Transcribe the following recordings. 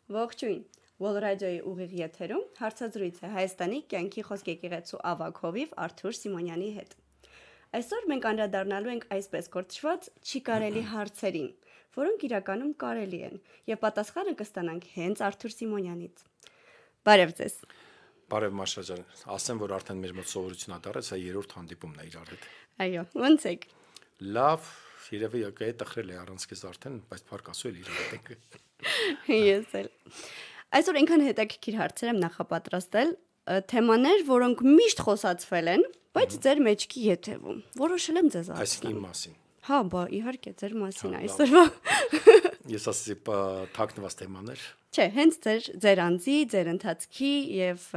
Ողջույն։ Wall Radio-ի ուղիղ եթերում հարցազրույց է Հայաստանի կյանքի խոսք եկեղեցու ավագ հովիվ Արթուր Սիմոնյանի հետ։ Այսօր մենք անդրադառնալու ենք այսպես կոչված չի կարելի հարցերին, որոնք իրականում կարելի են, եւ պատասխանը կստանանք հենց Արթուր Սիմոնյանից։ Բարև ձեզ։ Բարև Մաշա ջան, ասեմ, որ արդեն մեր մոտ սովորություն ա դարել, սա երրորդ հանդիպումն է իրար հետ։ Այո, ո՞նց եք։ Լավ, երևի եկե տխրել է առանց քեզ արդեն, բայց փառք Աստծո էլ իրար հետ ենք։ Ես էլ։ Այսօր ինքան հետաքրքիր հարցեր եմ նախապատրաստել, թեմաներ, որոնք միշտ խոսացվել են, բայց ձեր մեջքի եթևում։ Որոշել եմ ձեզ Այսինքն իմ մասին։ Հա, բա իհարկե ձեր մասին այսօրվա։ Ես ասեցի թաքնված թեմաներ։ Չէ, հենց ձեր անձի, ձեր ընթացքի եւ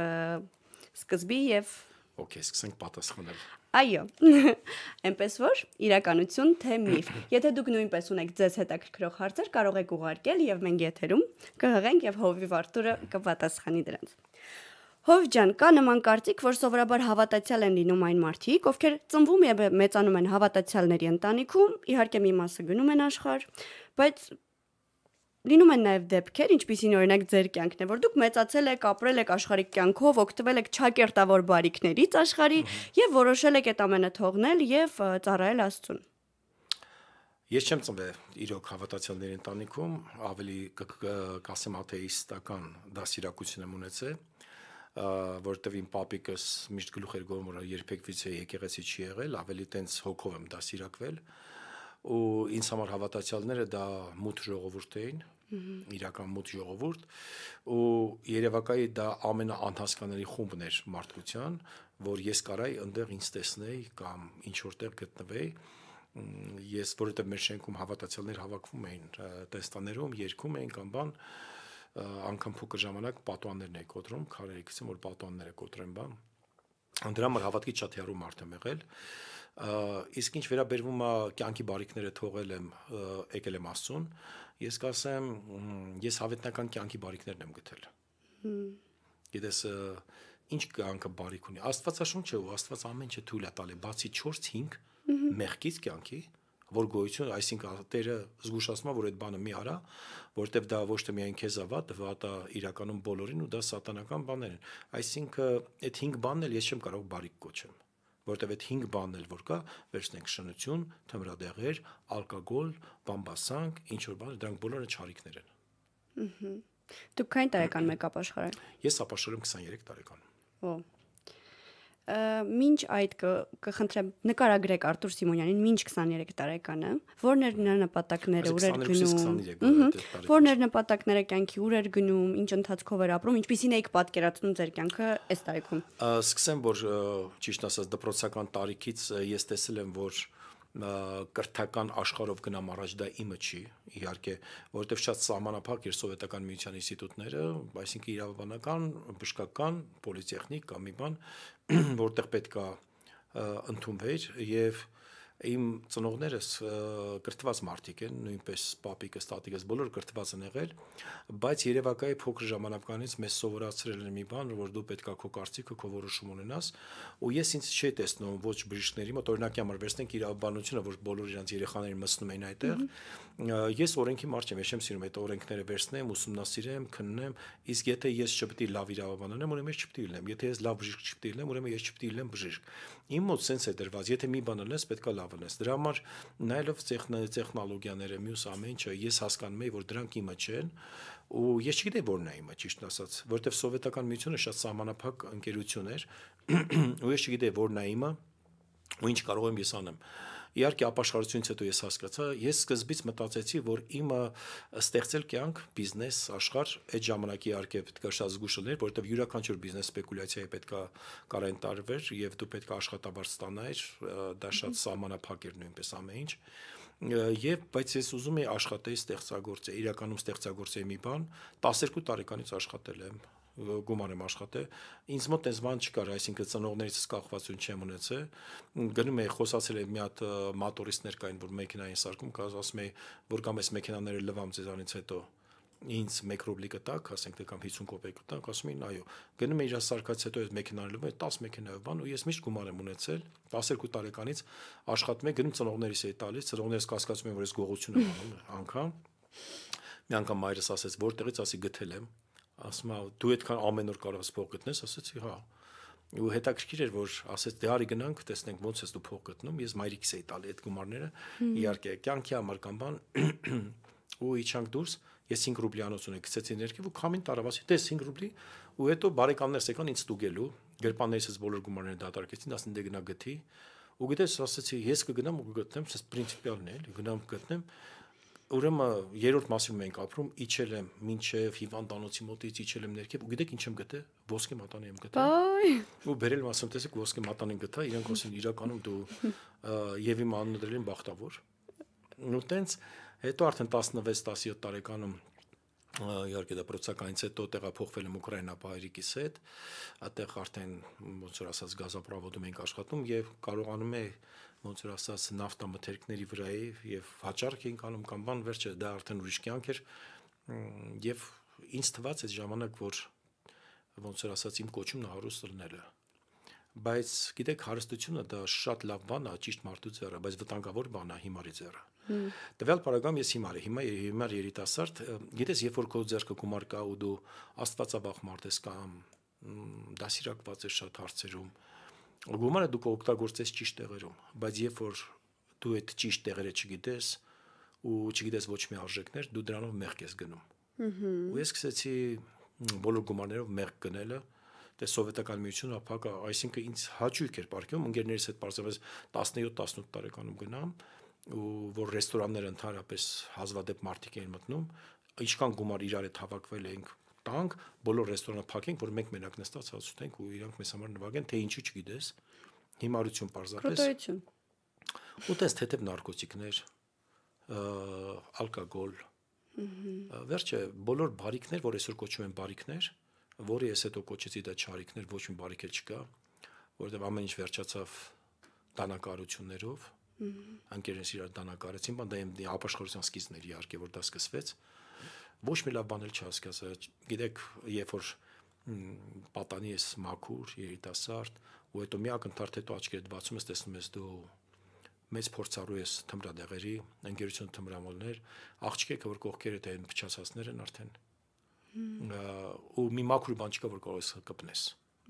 սկզբի եւ Okay, սկսենք պատասխանել։ Այո։ Էնպես որ իրականություն թե միֆ։ Եթե դուք նույնպես ունեք ձեզ հետաքրքրող հարցեր, կարող եք ուղարկել եւ մենք եթերում կհղենք եւ Հովիվ Արտուրը կպատասխանի դրանց։ Հով ջան, կա նման կարծիք, որ սովորաբար հավատացյալ են լինում այն մարդիկ, ովքեր ծնվում եւ մեծանում են հավատացյալների ընտանիքում, իհարկե մի մասը գնում են աշխարհ, բայց լինում են նաև դեպքեր, ինչպիսին օրինակ ձեր կյանքն է, որ դուք մեծացել եք, ապրել եք աշխարհիկ կյանքով, օգտվել եք ճակերտավոր բարիքներից աշխարհի եւ որոշել եք այդ ամենը թողնել եւ ծառայել Աստծուն։ Ես չեմ ծնվել իրոք հավատացյալների ընտանիքում, ավելի կասեմ աթեիստական դասիրակություն եմ ունեցել, որտեղ իմ պապիկս միշտ գլուխ էր գովում, որ երբեք վիցե եկեղեցի չի եղել, ավելի տենց հոգով եմ դասիրակվել, ու ինձ համար հավատացյալները դա մութ ժողովուրդ էին, իրական մութ ժողովուրդ, ու երևակայի դա ամենաանհասկանալի խումբն էր մարդկության, որ ես կարայի այնտեղ ինձ տեսնեի կամ ինչ որտեղ գտնվեի, ես որովհետև մեր շենքում հավատացյալներ հավաքվում էին տեստաներում, երգում էին կամ բան, անգամ փոքր ժամանակ պատուաններն էի կոտրում, քարերի գցում, որ պատուանները կոտրեն բան, դրա համար հավատքի շատ հեռու մարդ եմ եղել, իսկ ինչ վերաբերվում է կյանքի բարիքները թողել եմ, եկել եմ Աստծուն, ես կասեմ, ես հավետնական կյանքի բարիքներն եմ գտել։ Գիտես, ինչ կյանքը բարիք ունի։ Աստվածաշունչը ու Աստված ամեն ինչ թույլ է տալի, բացի 4-5 մեղքից կյանքի, որ գոյություն, այսինքն Տերը զգուշացնում է, որ այդ բանը մի արա, որտեվ դա ոչ թե միայն քեզ վատ է իրականում բոլորին ու դա սատանական բաներ են։ Այսինքն այդ 5 բանն էլ ես չեմ կարող բարիք կոչեմ, որտեվ այդ 5 բանն էլ որ կա, վերցնենք շնություն, թմրադեղեր, ալկոգոլ, բամբասանք, ինչ որ բան, դրանք բոլորը չարիքներ են։ Դուք քանի տարեկան եք ապաշխարել։ Ես ապաշխարում 23 տարեկան։ Օ։ Մինչ այդ կխնդրեմ նկարագրեք Արտուր Սիմոնյանին մինչ 23 տարեկանը, որն էր նրա նպատակները, ուր էր գնում, որն էր նպատակները կյանքի, ուր էր գնում, ինչ ընթացքով էր ապրում, ինչպիսին էիք պատկերացնում ձեր կյանքը այս տարիքում։ Սկսեմ, որ ճիշտ ասած դպրոցական տարիքից ես տեսել եմ, որ կրթական աշխարհով գնամ առաջ դա իմը չի, իհարկե, որովհետև շատ սահմանափակ էր սովետական միության ինստիտուտները, այսինքն իրավաբանական, բժշկական, պոլիտեխնիկ կամ մի բան, որտեղ պետք է ընդունվեր եւ իմ ծնողներս կրթված մարդիկ են, նույնպես պապիկս, տատիկս բոլորը կրթված են եղել, բայց երևակայի փոքր ժամանակից մեզ սովորացրել են մի բան, որ դու պետք է քո կարծիքը, քո որոշում ունենաս, ու ես ինձ չի տեսնում ոչ բժիշկների մոտ, օրինակի համար վերցնենք իրավաբանությունը, որ բոլոր իրանց երեխաներին մտնում են այդտեղ, ես օրենքի մարդ եմ, ես չեմ սիրում այդ օրենքները վերցնեմ, ուսումնասիրեմ, քննեմ, իսկ եթե ես չպետք է լավ իրավաբան ունեմ, ուրեմն ես չպետք է լինեմ, եթե ես լավ բժիշկ չպետք է լինեմ, ուրեմն ես չպետք է լինեմ բժիշկ։ Իմ մոտ սենց է դրված, եթե մի բան ունես, պետք է լավ ունես։ Դրա համար նայելով տեխնոլոգիաները, մյուս ամեն ինչը, ես հասկանում եմ, որ դրանք իմը չեն, ու ես չգիտեի որն է իմը, ճիշտ ասած, որովհետև սովետական միությունը շատ սահմանափակ ընկերություն էր, ու ես չգիտեի որն է իմը, ու ինչ կարող եմ ես անեմ։ Իհարկե ապաշխարությունից հետո ես հասկացա, ես սկզբից մտածեցի, որ իմը ստեղծել կյանք, բիզնես, աշխարհ, այդ ժամանակի իհարկե պետք է շատ զգուշ լինել, որովհետև յուրաքանչյուր բիզնես սպեկուլյացիայի պետք է կարեն տարվեր եւ դու պետք է աշխատավարձ ստանայր, դա շատ սահմանափակ էր նույնպես ամեն ինչ։ Եվ բայց ես ուզում եի աշխատեի ստեղծագործել, իրականում ստեղծագործեի մի բան, 12 տարեկանից աշխատել եմ, գումար եմ աշխատել, ինձ մոտ այս բան չկար, այսինքն ծնողներիցս կախվածություն չեմ ունեցել, գնում էի խոսացել եմ մի հատ մատորիստներ կային, որ մեքենային սարքում, ասում էի, որ կամ այս մեքենաները լվամ ձեզանից հետո ինձ 1 ռուբլի կտակ, ասենք թե կամ 50 կոպեկ կտակ, ասում էին այո, գնում էի իր սարքած հետո այդ մեքենան լվում է 10 մեքենայով բան ու ես միշտ գումար եմ ունեցել, 12 տարեկանից աշխատում եմ, գնում ծնողներիս էի տալիս, ծնողներս կասկածում են, որ ես գողություն եմ անում անգամ։ Մի անգամ մայրս ասեց, որտեղից ասի գտել եմ, ասում է դու այդքան ամեն օր կարող ես փող գտնես, ասեցի հա։ Ու հետաքրքիր էր, որ ասեց դե արի գնանք, տեսնենք ոնց ես դու փող գտնում, ես մայրիկս էի տալի այդ գումարները, իհարկե կյանքի համար կամ բան, ու իջանք դուրս, ես 5 ռուբլիանոց ունեի, գցեցի ներքև ու քամին տարավ, ասի տես 5 ռուբլի, ու հետո բարեկամներս եկան ինձ ստուգելու, գրպաններիցս բոլոր գումարները դատարկեցին, ասին դե գնա գթի, ու գիտես, ասեցի ես կգնամ ու կգտնեմ, սա պրինցիպիալն է, էլի, գնամ գտնեմ, ուրեմն երրորդ մասում ենք ապրում, իջել եմ մինչև հիվանդանոցի մոտից իջել եմ ներքև, ու գիտեք ինչ եմ գտել, ոսկե մատանի եմ գտել։ Ու բերել եմ ասում, տեսեք ոսկե մատանին գտա, իրանք ասեն իրականում դու եւ իմ անունը դրել են բախտավոր։ Ու տենց հետո արդեն 16-17 տարեկանում իհարկե դա պրոցեսականից հետո տեղափոխվել եմ Ուկրաինա հայրիկիս հետ, այդտեղ արդեն ոնց որ ասած գազապրովոդում ենք աշխատում եւ կարողանում է ոնց որ ասած նավթամթերքների վրայի եւ հաճարք ենք անում կամ բան վերջը դա արդեն ուրիշ կյանք էր եւ ինձ թվաց այդ ժամանակ որ ոնց որ ասած իմ կոչումն հարուստ լնելը բայց գիտեք հարստությունը դա շատ լավ բան է ճիշտ մարդու ձեռը բայց վտանգավոր բան է հիմարի ձեռը տվյալ парагրամ ես հիմար երիտասարդ գիտես երբ որ քո ձեռքը գումար կա ու դու աստվածաբախ մարդ ես կամ դասիրակված ես շատ հարցերում գումարը դու կօգտագործես ճիշտ տեղերում բայց երբ որ դու այդ ճիշտ տեղերը չգիտես ու չգիտես ոչ մի արժեքներ դու դրանով մեղք ես գնում ու ես սկսեցի բոլոր գումարներով մեղք գնելը դե սովետական միությունը ապակա այսինքն ինձ հաճույք էր ապարքում ընկերներիս հետ պարզապես 17-18 տարեկանում գնամ ու որ ռեստորանները ընդհանրապես հազվադեպ մարդիկ էին մտնում ինչքան գումար իրար հետ հավաքվել ենք տանք բոլոր ռեստորանը փակենք որ մենք մենակ նստած հաց ուտենք ու իրանք մեզ համար նվագեն թե ինչի չգիտես հիմարություն պարզապես ու տես թեթև նարկոտիկներ ալկոգոլ վերջը բոլոր բարիքներ որ այսօր կոչվում են բարիքներ որը ես հետո կոչեցի դա չարիքներ ոչ մի բարիք էլ չկա որովհետև ամեն ինչ վերջացավ դանակարություններով անկերնս իրար դանակարեցին բան դա իմ ապաշխարության սկիզբն էր իհարկե որ դա սկսվեց ոչ մի լավ բան էլ չհասկացա գիտեք երբ որ պատանի ես մաքուր երիտասարդ ու հետո մի ակնթարթ հետո աչքերդ բացում ես տեսնում ես դու մեծ փորձառու ես թմրադեղերի ընկերություն թմրամոլներ աղջիկը որ կողքերդ են փչացածներ են արդեն ու մի մաքուր բան չկա որ կարող ես կպնես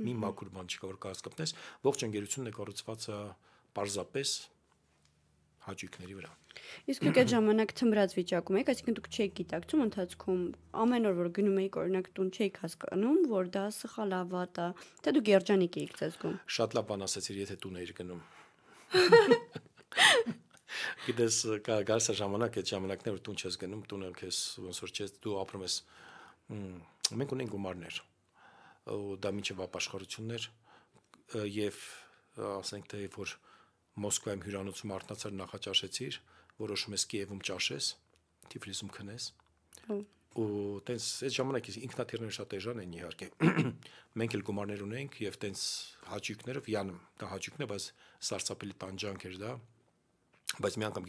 մի մաքուր բան չկա որ կարող ես կպնես ողջ ընկերությունն է կառուցված պարզապես հաճույքների վրա իսկ դուք այդ ժամանակ թմրած վիճակում եք այսինքն դուք չեք գիտակցում ընթացքում ամեն օր որ գնում եք օրինակ տուն չեք հասկանում որ դա սխալ է վատ է թե դուք երջանիկ եք ձեզ զգում շատ լավ բան ասացիր եթե տուն էիր գնում գիտես գարս ժամանակ այդ ժամանակներ որ տուն չես գնում տունը քեզ ոնց որ չես դու ապրում ես մենք ունենք գումարներ ու դա միջև ապաշխարություններ եւ ասենք թե որ Մոսկվայում հյուրանոցում արթնացար նախաճաշեցիր որոշում ես Կիևում ճաշես Թիֆլիսում քնես ու տենց այդ ժամանակ ինքնաթիռները շատ էժան են իհարկե մենք էլ գումարներ ունենք եւ տենց հաճույքներով յանը դա հաճույքն է բայց սարսափելի տանջանք էր դա բայց մի անգամ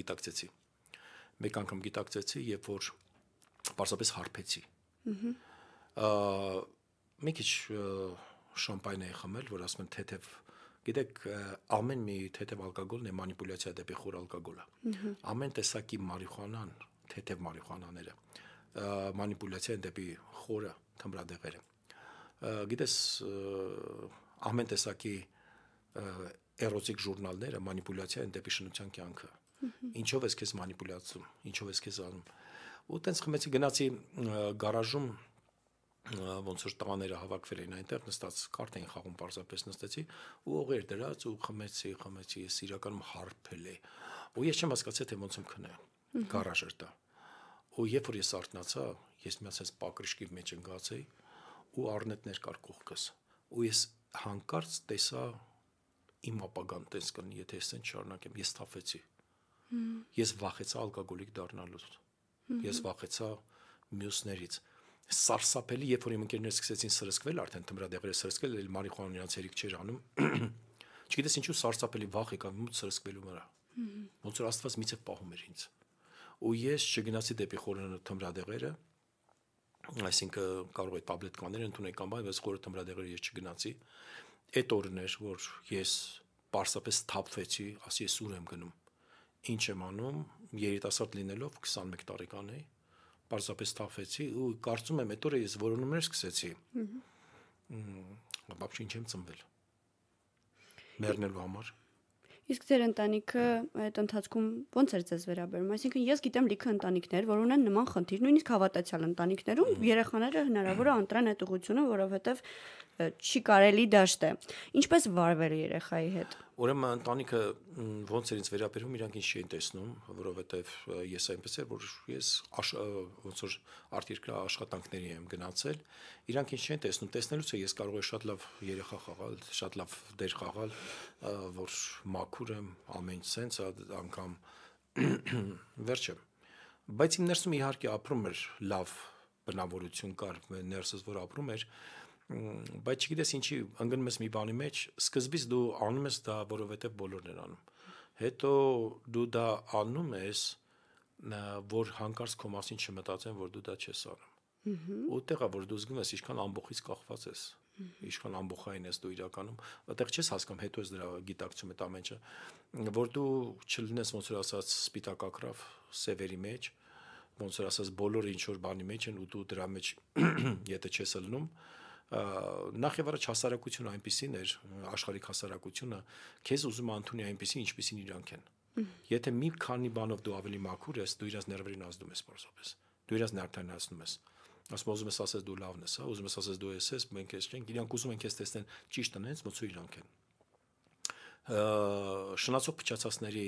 գիտակցեցի երբ որ պարզապես հարբեցի մի քիչ շամպայն էի խմել որ ասում են թեթև գիտեք ամեն մի թեթև ալկոգոլն է մանիպուլյացիա դեպի խոր ալկոգոլը ամեն տեսակի մարիխուանան թեթև մարիխուանաները մանիպուլյացիա են դեպի խորը թմրադեղերը գիտես ամեն տեսակի էրոտիկ ժուրնալները մանիպուլյացիա են դեպի շնության կյանքը ինչով ես քեզ մանիպուլյացում ինչով ես քեզ անում ու տենց խմեցի գնացի գարաժում ոնց որ տղաները հավաքվել էին այնտեղ նստած կարտ էին խաղում պարզապես նստեցի ու օղեր դրած ու խմեցի ես իրականում հարբել է ու ես չեմ հասկացել թե ոնց եմ քնե գարաժ էր դա ու երբ որ ես արթնացա ես միացած պակրիշկի մեջ ընկած էի ու առնետներ կար կողքս ու ես հանկարծ տեսա իմ ապագան տես կնի եթե ես այն շարունակեմ ես թափեցի ես վախեցա ալկոգոլիկ դառնալուց ես վախեցա մյուսներից սարսափելի երբ որ իմ ընկերներս սկսեցին սրսկվել արդեն թմրադեղերը սրսկել էլ մարիխուանան իրանց հերիք չէր անում չգիտես ինչու սարսափելի վախ եկավ մուտ սրսկվելու վրա ոնց որ Աստված միցև պահում էր ինձ ու ես չգնացի դեպի խորը թմրադեղերը այսինքն կարող է տաբլետկաներ ընդունել կամ բայց խորը թմրադեղերը ես չգնացի այդ օրն էր որ ես պարզապես թափվեցի ասի ես ուր եմ գնում ինչ եմ անում երիտասարդ լինելով 21 տարեկան էի պարզապես թափվեցի ու կարծում եմ այդ օրը ես որոնումներ սկսեցի։ Բաբշ ինչ եմ ծնվել։ Մեռնելու համար։ Իսկ ձեր ընտանիքը այդ ընթացքում ո՞նց էր ձեզ վերաբերում։ Այսինքն ես գիտեմ լիքը ընտանիքներ, որ ունեն նման խնդիր, նույնիսկ հավատացյալ ընտանիքներում երեխաները հնարավոր է ընտրեն այդ ուղղությունը, որովհետև չի կարելի դաշտ է։ Ինչպես վարվել երեխայի հետ։ Ուրեմն ընտանիքը ոնց էր ինձ վերաբերում, իրանք ինձ չէին տեսնում, որովհետև ես այնպես էր, որ ես ոնց որ արտերկրյա աշխատանքների եմ գնացել, իրանք ինձ չէին տեսնում, տեսնելուց է ես կարող եմ շատ լավ երեխա խաղալ, շատ լավ դեր խաղալ, որ մաքուր եմ, ամեն ինչ sense անգամ վերջը։ Բայց իմ ներսում իհարկե ապրում էր լավ բնավորություն կար, ներսս որ ապրում էր, բայց չգիտես ինչի ընկնում ես մի բանի մեջ, սկզբից դու անում ես դա, որովհետև բոլորն են անում։ Հետո դու դա անում ես, որ հանկարծ քո մասին չմտածեն, որ դու դա չես անում։ Ու տեղա որ դու զգում ես, ինչքան ամբողից կախված ես, ինչքան ամբողջային ես դու իրականում, այդտեղ չես հասկանում, հետո ես դրա գիտակցում այդ ամեն ինչը, որ դու չլինես ոնց որ ասած սպիտակակրավ սևերի մեջ, ոնց որ ասած բոլորը ինչ որ բանի մեջ են ու դու դրա մեջ եթե չես ելնում, նախ եւ առաջ հասարակությունը այնպեսին էր, աշխարհիկ հասարակությունը քեզ ուզում է ընդունի այնպեսին, ինչպեսին իրանք են։ Եթե մի քանի բանով դու ավելի մաքուր ես, դու իրաց ներվերին ազդում ես պարզապես։ Դու իրաց նյարդայնացնում ես։ Ասում ուզում ես ասես դու լավն ես, հա, ուզում ես ասես դու ես, մենք ես չենք, իրանք ուզում են քեզ տեսնեն ճիշտ անենց, ոնց որ իրանք են։ Շնացող փչացածների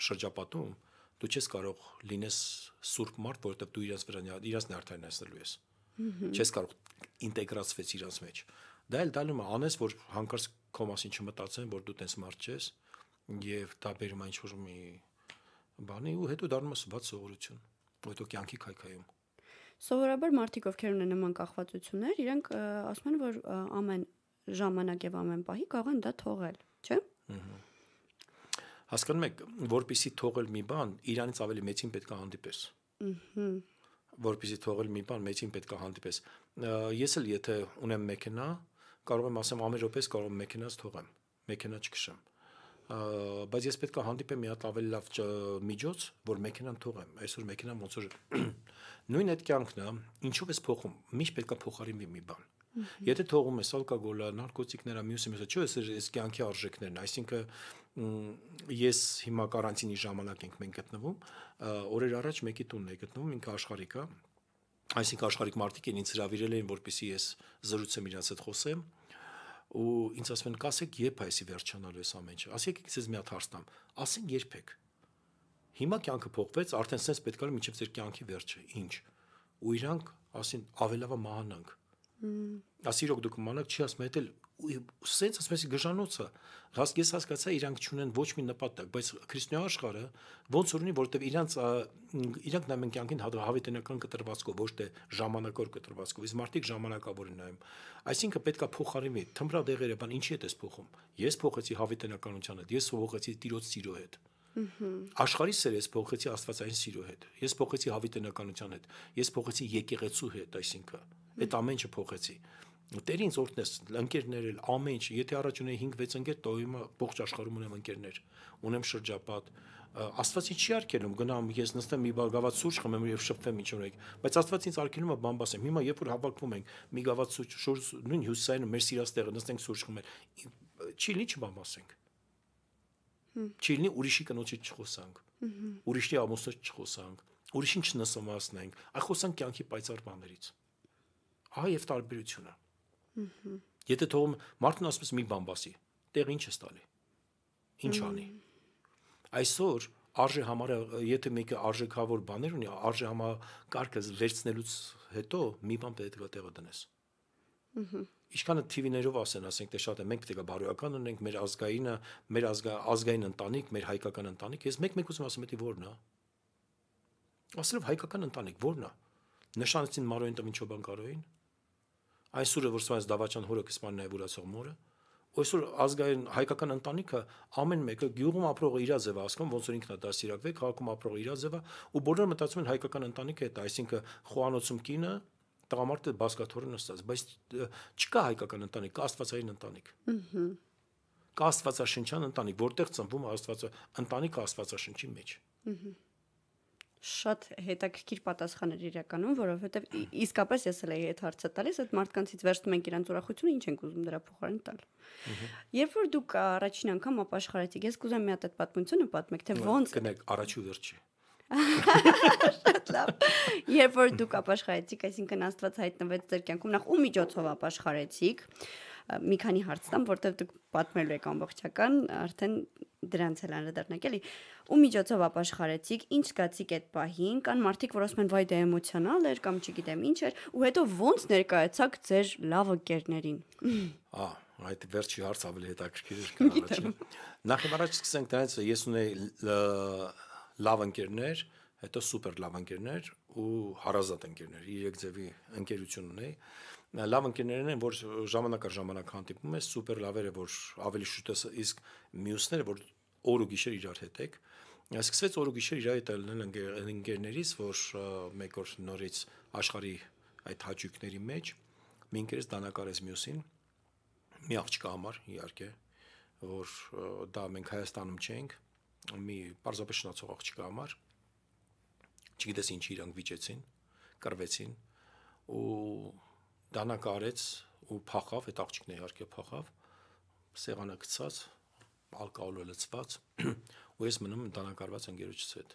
շրջապատում դու չես կարող լինես սուրբ մարդ, որովհետև դու իրաց նյարդայնացնելու ես։ Չես կարող ինտեգրացվես իրաց մեջ։ Դա էլ դալում է անես, որ հանկարծ քո մասին չմտածեն, որ դու տես մարդ ես, եւ դա բերում է ինչ-որ մի բանի ու հետո դառնում է սված սովորություն, հետո կյանքի քայքայում։ Սովորաբար մարդիկ, ովքեր ունեն նման կախվածություններ, իրենք ասում են, որ ամեն ժամանակ եւ ամեն պահի կարող են դա թողել, չէ՞։ Հասկանում եք, որպեսի թողել մի բան, իրանից ավելի մեծին պետք է հանդիպես։ Որպեսի թողել մի բան, մեծին պետք է հանդիպես։ Ես էլ եթե ունեմ մեքենա, կարող եմ ասեմ ամեն րոպես կարող եմ մեքենաս թողեմ, մեքենա չքշեմ։ Բայց ես պետք է հանդիպեմ մի հատ ավելի լավ միջոց, որ մեքենան թողեմ։ Այսօր մեքենան ոնց որ նույն այդ կյանքն է, ինչով ես փոխում, միշտ պետք է փոխարինվի մի բան։ Եթե թողում ես ալկոգոլը, նարկոտիկները, մյուսը, չէ, այս կյանքի արժեքներն, այսինքն ես հիմա կարանտինի ժամանակ ենք մենք գտնվում, օրեր առաջ մեկի տունն է գտնվում, ինքը աշխարհիկ է, այսինքն աշխարհիկ մարդիկ են ինձ հրավիրել են, որպեսզի ես զրուցեմ իրաց հետ խոսեմ, ու ինձ ասում են, կասեք երբ է այսի վերջանալու էս ամեն ինչը, ասեք ինձ մի հատ հարց տամ, ասեն երբեք։ Հիմա կյանքը փոխվեց, արդեն sense պետք է մինչև ձեր կյանքի վերջը, ինչ։ Ու իրանք ասին ավելավա մահանանք։ Ասիրոք դուք մանակ չի ասում, հետ էլ sense ասում ես գժանոցը։ Ես հասկացա իրանք չունեն ոչ մի նպատակ, բայց քրիստոնյա աշխարհը ոնց որ ունի, որովհետև իրանք նայում են կյանքին հավիտենական կտրվածքով, ոչ թե ժամանակավոր կտրվածքով, իսկ մարդիկ ժամանակավոր են նայում։ Այսինքն պետքա փոխարինվի թմբրադեղերը, բան ինչի՞ է դες փոխում։ Ես փոխեցի հավիտենականության հետ, ես փոխեցի Տիրոջ սիրո հետ։ Աշխարհի սերը ես փոխեցի աստվածային սիրո հետ, ես փոխեցի հավիտենականության հետ, ես փոխեցի եկեղեցու հետ, այսինքն այդ ամեն ինչը փոխեցի։ Տեր ինձ օրհնես, ընկերներ էլ ամեն ինչ, եթե առաջ ունեի 5-6 ընկեր, તો հիմա ողջ աշխարհում ունեմ ընկերներ, ունեմ շրջապատ։ Աստված ինձ չի արգելում, գնամ ես նստեմ մի գավաթ սուրճ խմեմ եւ շփվեմ ինչ ունեք, բայց Աստված ինձ արգելում է բան բասեմ։ Հիմա երբ որ հավաքվում ենք մի գավաթ սուրճ, նույն հյուսիսային մեր սիրած տեղը նստենք սուրճ խմել, չի լինի չբան բասենք։ Չի լինի ուրիշի կնոջից չխոսանք, ուրիշի ամուսնուց չխոսանք, ուրիշին չնսոմացնենք, այլ խոսանք կյանքի պայծառ բաներից։ Ահա եւ տարբերությունը։ Եթե թողում մարդն ասում է մի բան բասի, տեղ ինչ ես տալի։ Ինչ անի։ Այսօր արժե համարը, եթե մեկը արժեքավոր բաներ ունի, արժե համակարգը վերցնելուց հետո մի բան պետք է տեղը դնես։ Ինչքանը TV-ներով ասենք թե շատ է, մենք պետք է բարոյական ունենք, մեր ազգայինը, մեր ազգային ընտանիք, մեր հայկական ընտանիք, ես մեկ ուզում ասեմ, դա ո՞րն է։ Ասելով հայկական ընտանիք ո՞րն է։ Նշանեցին Մարոյին Տմիչոբան Կարոյին։ Այսօր որ սրանց Դավաճան հորը կսպան նաև ուրացող մորը։ Այսօր ազգային հայկական ընտանիքը ամեն մեկը գյուղում ապրողը իր ձևը ասում, ոնց որ ինքն է դասիրակվել, քաղաքում ապրողը իր ձևը, ու բոլորը մտածում են հայկական ընտանիքը դա, այսինքն խոհանոցում կինը տղամարդը բասկաթոռը նստած, բայց չկա հայկական ընտանիք, կա աստվածային ընտանիք։ Կա աստվածաշնչյան ընտանիք, որտեղ ծնվում է ընտանիքը աստվածաշնչի մեջ։ շատ հետաքրքիր պատասխան էր իրականում, որովհետև իսկապես ես էլ էի այդ հարցը տալիս, այդ մարդկանցից վերջում ենք իրանց ուրախությունը, ինչ ենք ուզում դրա փոխարեն տալ։ Երբ որ դուք առաջին անգամ ապաշխարեցիք, ես կուզեմ մի հատ այդ պատմությունը պատմեք, թե ոնց կնեք առաջի ու վերջի։ Շատ լավ։ Երբ որ դուք ապաշխարեցիք, այսինքն Աստված հայտնվեց ձեր կյանքում, նախ ու միջոցով ապաշխարեցիք, մի քանի հարց տամ, որտեղ դուք պատմելու եք ամբողջական, արդեն դրանց էլ անդրադառնանք, էլի։ Ու միջոցով ապաշխարեցիք, ինչ զգացիք այդ պահին, կան մարդիկ, որ ասում են վայ դա էմոցիոնալ էր կամ չգիտեմ ինչ էր, ու հետո ոնց ներկայացաք ձեր լավ ընկերներին։ Այդ վերջի հարց ավելի հետաքրքիր էր քան առաջինը։ Նախ եւ առաջ սկսենք դրանից, ես ունեի լավ ընկերներ, հետո սուպեր լավ ընկերներ ու հարազատ ընկերներ, 3 ձևի ընկերություն ունեի։ Լավ ընկերներն են, որ ժամանակ առ ժամանակ հանդիպում ես, սուպեր լավերը, որ ավելի շուտ ես, իսկ մյուսները, որ օր ու գիշեր իրար հետ եք։ Սկսվեց օր ու գիշեր իրար հետ լինել ընկերներից, որ մեկ օր նորից աշխարհի այդ հաճույքների մեջ մի ընկերս դանակարեց մյուսին, մի աղջկա համար, իհարկե, որ դա մենք Հայաստանում չենք, մի պարզապես շնացող աղջկա համար, չգիտես ինչի իրանք վիճեցին, կռվեցին ու դանակարեց ու փախավ, այդ աղջիկն իհարկե փախավ, սեղանը գցած, ալկոհոլը լցված, ու ես մնում դանակարված ընկերոջս հետ։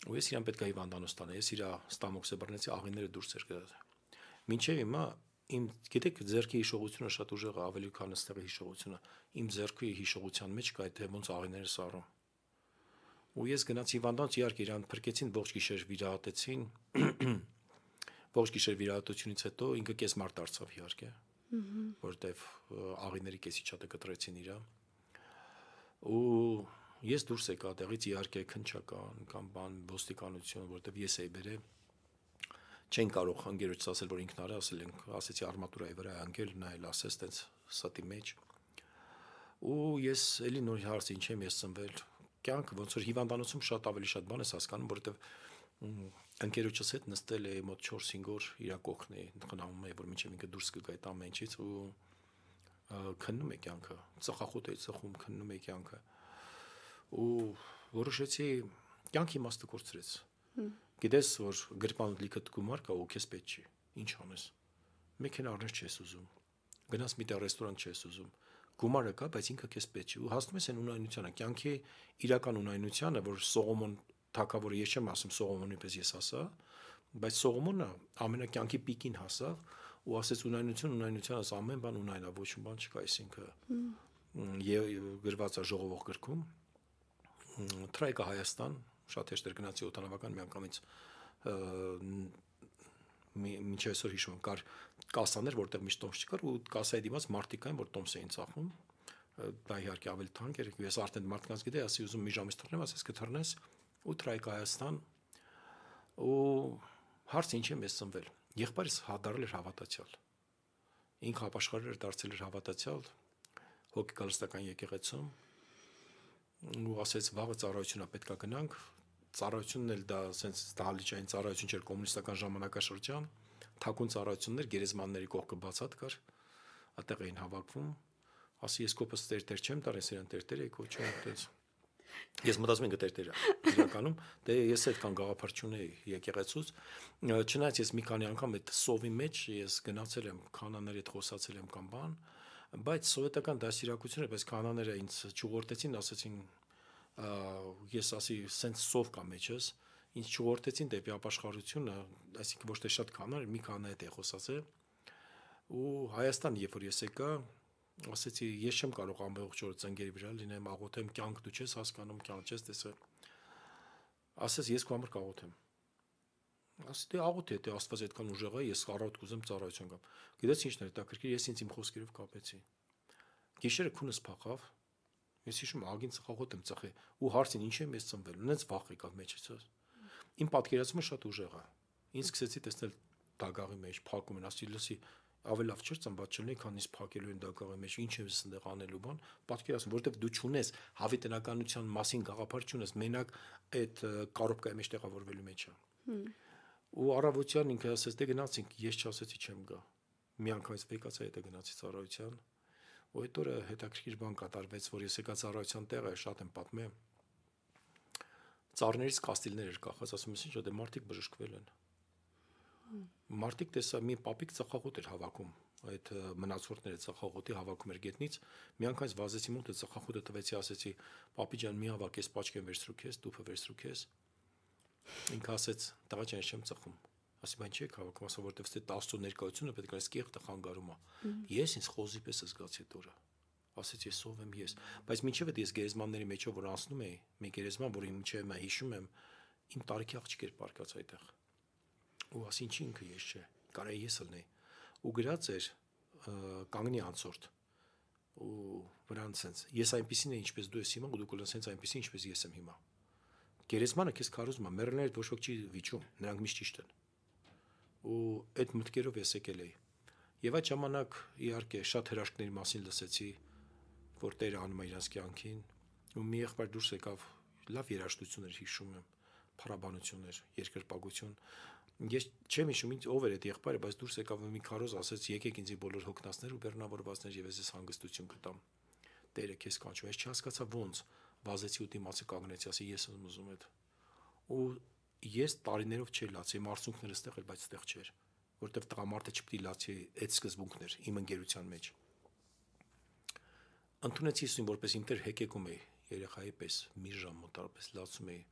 Ու ես իրան պետք է հիվանդանոց տանեի, ես իր ստամոքսը բռնեցի, աղիները դուրս էր գցած։ Մինչև հիմա իմ գիտեք ձեռքի հիշողությունը շատ ուժեղ է, ավելի քան այստեղի հիշողությունը։ Իմ ձեռքի հիշողության մեջ կա այդ ոնց աղիները սառում։ Ու ես գնացի հիվանդանոց, իհարկե իրան փրկեցին, ողջ գիշեր վիրահատեցին։ Ողջ գիշեր վիրահատությունից հետո ինքը կես մարդ դարձավ իհարկե, որտեվ աղիների կեսիչատը կտրեցին իրա։ Ու ես դուրս եկա տեղից, իհարկե քնչական կամ բան ոստիկանություն, որտեվ ես էի բերել, չեն կարող ընկերոջս ասել, որ ինքն արել, ասեցի արմատուրայի վրա է ընկել, նա էլ ասեց տենց ստի մեջ։ Ու ես էլի նոր հարց ինչ եմ ես ծնվել, կյանքը ոնց որ հիվանդանոցում շատ ավելի շատ բան ես հասկանում, որտեվ ընկերոջս հետ նստել էի մոտ 4-5 օր իր կողքն էի, խնամում էի, որ մինչև ինքը դուրս կգա այդ ամեն ինչից ու քննում է կյանքը, ծխախոտ էի ծխում, քննում էի կյանքը։ Ու որոշեցի կյանքի իմաստը կորցրեց։ Գիտես, որ գրպան լիքը գումար կա ու քեզ պետք չի, ինչ անես։ Մեքենա առնես չես ուզում, գնաս մի տեղ ռեստորան չես ուզում, գումարը կա, բայց ինքը քեզ պետք չի։ Ու հասնում ես այն ունայնությանը, կյանքի իրական ունայնությանը, որ Սողոմոն թագավորը, ես չեմ ասում Սողոմոնի պես ես ասա, բայց Սողոմոնը ամենակյանքի պիկին հասավ ու ասեց ունայնությանս ամեն բան ունայնա, ոչ մի բան չկա, այսինքն գրված է ժողովող գրքում, Թրայկա Հայաստան, շատ հեշտ էր գնացի օդանավական միանգամից մինչև այսօր հիշում եմ, կար կասաներ, որտեղ միշտ տոմս չկար ու կասայի դիմաց մարդիկ կային, որ տոմս էին ծախում, դա իհարկե ավելի թանկ էր, ես արդեն մարդկանց գիտեի, ասի ուզում մի ժամից թռնեմ, ասես կթռնես ու Թրայկա Հայաստան ու հարց ինչ եմ ես ծնվել, եղբայրս դարձել էր հավատացյալ, ինքը ապաշխարել էր, դարձել էր հավատացյալ, հոգեկալստական եկեղեցում ու ասեց վաղը ծառայությունա պետքա գնանք, ծառայությունն էլ դա սենց դահլիճային ծառայություն չէր կոմունիստական ժամանակաշրջան, թաքուն ծառայություններ գերեզմանների կողքը բացատ կար, այդտեղ էին հավաքվում, ասի ես կոպս տերտեր չեմ տար, ես իրան տերտեր էի կոչում, այդպես։ Ես մտածում եմ գտերտեր է իրականում, դե ես այդքան գաղափար չունեի եկեղեցուց, չնայած ես մի քանի անգամ այդ սովի մեջ ես գնացել եմ, քանաների հետ խոսացել եմ կամ բան, բայց սովետական դասիրակությունը, բայց քանաները ինձ չուղղորդեցին, ասեցին ես ասի սենց սով կա մեջս, ինձ չուղղորդեցին դեպի ապաշխարությունը, այսինքն ոչ թե շատ քանան, մի քանա հետ է խոսացել, ու Հայաստան, երբ որ ես եկա, ասեցի ես չեմ կարող ամբողջ օրը ծնգերի վրա լինեմ, աղոթեմ, կյանք դու չես հասկանում, կյանք չես տեսել, ասես ես քո համար կաղոթեմ, ասի դե աղոթի, դե Աստված այդքան ուժեղ է, ես առավոտ կուզեմ ծառայություն գամ, գիտես ինչն էր հետաքրքիր, ես ինձ իմ խոսքերով կապեցի, գիշերը քունս փախավ, ես հիշում ագին ծխախոտ եմ ծխի ու հարցին ինչ եմ ես ծնվել, ունենց վախ եկավ մեջից, իմ պատկերացումը շատ ուժեղ է, ինձ սկսեցի տեսնել դագաղի մեջ, փակում են, ասի լսի ավելի լավ չէր ծնված չլինի, քան ինձ փակելու են դագաղի մեջ, ինչ եմ այստեղ անելու բան, պատկերացնում, որովհետև դու չունես հավիտենականության մասին գաղափար չունես, մենակ այդ կարոպկայի մեջ տեղավորվելու մեջ է։ Ու առավոտյան ինքը ասեց, դե գնացինք, ես չասեցի չեմ գա։ Մի անգամից եկացա հետը գնացի ծառայության։ Ու այդ օրը հետաքրքիր բան կատարվեց, որ ես եկա ծառայության տեղը, շատ եմ պատմել։ Ծառներից կաստիլներ էր կախած, ասում ես ինչ, դե մարդիկ բժշկվել են։ Մարդիկ տեսա մի պապիկ ծխախոտ էր հավաքում, այդ մնացորդները ծխախոտի հավաքում էր գետնից, մի անգամ վազեցի մոտ այդ ծխախոտը տվեցի, ասեցի, պապի ջան, մի հավաք, ես պաճկեն վերցրու քեզ, տուփը վերցրու քեզ։ Ինքը ասեց, տղա ջան, ես չեմ ծխում։ Ասի, բայց չի հավաքում, ասա, որտեվ ստե 10 ներկայությունը պետք է այս կեղտը խանգարում է։ Ես ինձ խոզի պես զգացի այդ օրը։ Ասեցի, ես ով եմ ես, բայց մինչև այդ ես գերեզմանների մեջով որ անցնում էի, մի գերեզման, որի մինչև մա հիշում եմ, իմ տարիքի աղջիկ էր պարկած այդտեղ։ Ու ասի, ինչի ինքը ես չէ, կարա ես ելնեի։ Ու գրած էր կանգնի անցորդ։ Ու վրան sense ես այնպեսին եմ ինչպես դու ես հիմա ու դու կլինես sense այնպեսին ինչպես ես եմ հիմա գերեզմանը քեզ քարոզում է մեռելները ոչ ոք չի վիճում նրանք միշտ ճիշտ են ու այդ մտքերով ես եկել էի եւ այդ ժամանակ իհարկե շատ հրաշքների մասին լսեցի որ Տերը անում է իրաց կյանքին ու մի եղբայր դուրս եկավ լավ երաժշտություն էր հիշում եմ փառաբանություններ երկրպագություն ես չեմ հիշում ինձ ով էր այդ եղբայրը բայց դուրս եկավ մի քարոզ ասեց եկեք ինձի բոլոր հոգնածներ ու բեռնավորվածներ եւ ես հանգստություն կտամ Տերը քեզ կանչում ես չհասկացա ոնց վազեցի ու դիմացի կանգնեցի ասի ես եմ ուզում այդ ու ես տարիներով չէի լացի իմ արցունքները ստեղ էր բայց ստեղ չէր որտեվ տղամարդը չպետք է լացի այդ սկզբունքներ իմ ընկերության մեջ ընդունեցի ինձ որպես ինտեր հեկեկում էի երեխայի պես մի ժամ մոտարապես լացում էի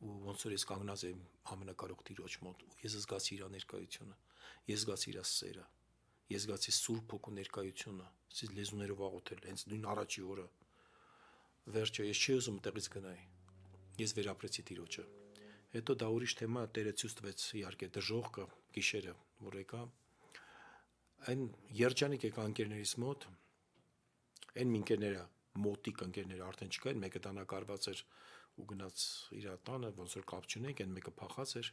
ու ոնց որ ես կանգնած եմ ամենակարող Տիրոջ մոտ ու ես զգացի իր ներկայությունը ես զգացի իր սերը ես զգացի Սուրբ Հոգու ներկայությունը ասես լեզուներով աղոթել հենց նույն առաջի օրը վերջը ես չի ուզում տեղից գնայի ես վերապրեցի Տիրոջը հետո դա ուրիշ թեմա Տերը ցույց տվեց իհարկե դժողքը գիշերը որ եկա այն երջանիկ եկա ընկերներիս մոտ այն ընկերները մոտիկ ընկերները արդեն չկային մեկը տանակարված էր ու գնաց իր տանը ոնց որ կապ չունենք այն մեկը փախած էր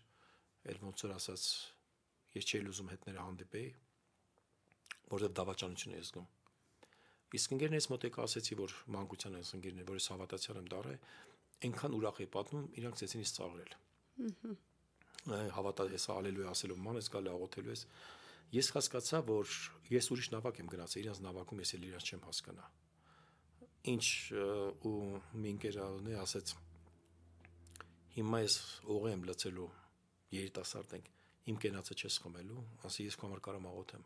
այլ ոնց որ ասած ես չէի ուզում հետները հանդիպեի որովհետև դավաճանություն եմ զգում իսկ ընկերներից մոտ եկա ասեցի որ մանկության այս ընկերներ որ ես հավատացյալ եմ դառը այնքան ուրախ է պատմում իրանք ցեցին ինձ ծաղրել հավատա ես ալելույա ասելով ման ես գալի աղոթելու ես ես հասկացա որ ես ուրիշ նավակ եմ գնացել իրանց նավակում ես էլ իրանց չեմ հասկանա ինչ ու մի ընկերն ասեց հիմա ես օղի եմ լցելու երիտասարդ ենք իմ կենացը չես խմելու ասի ես քո համար կարամ աղոթեմ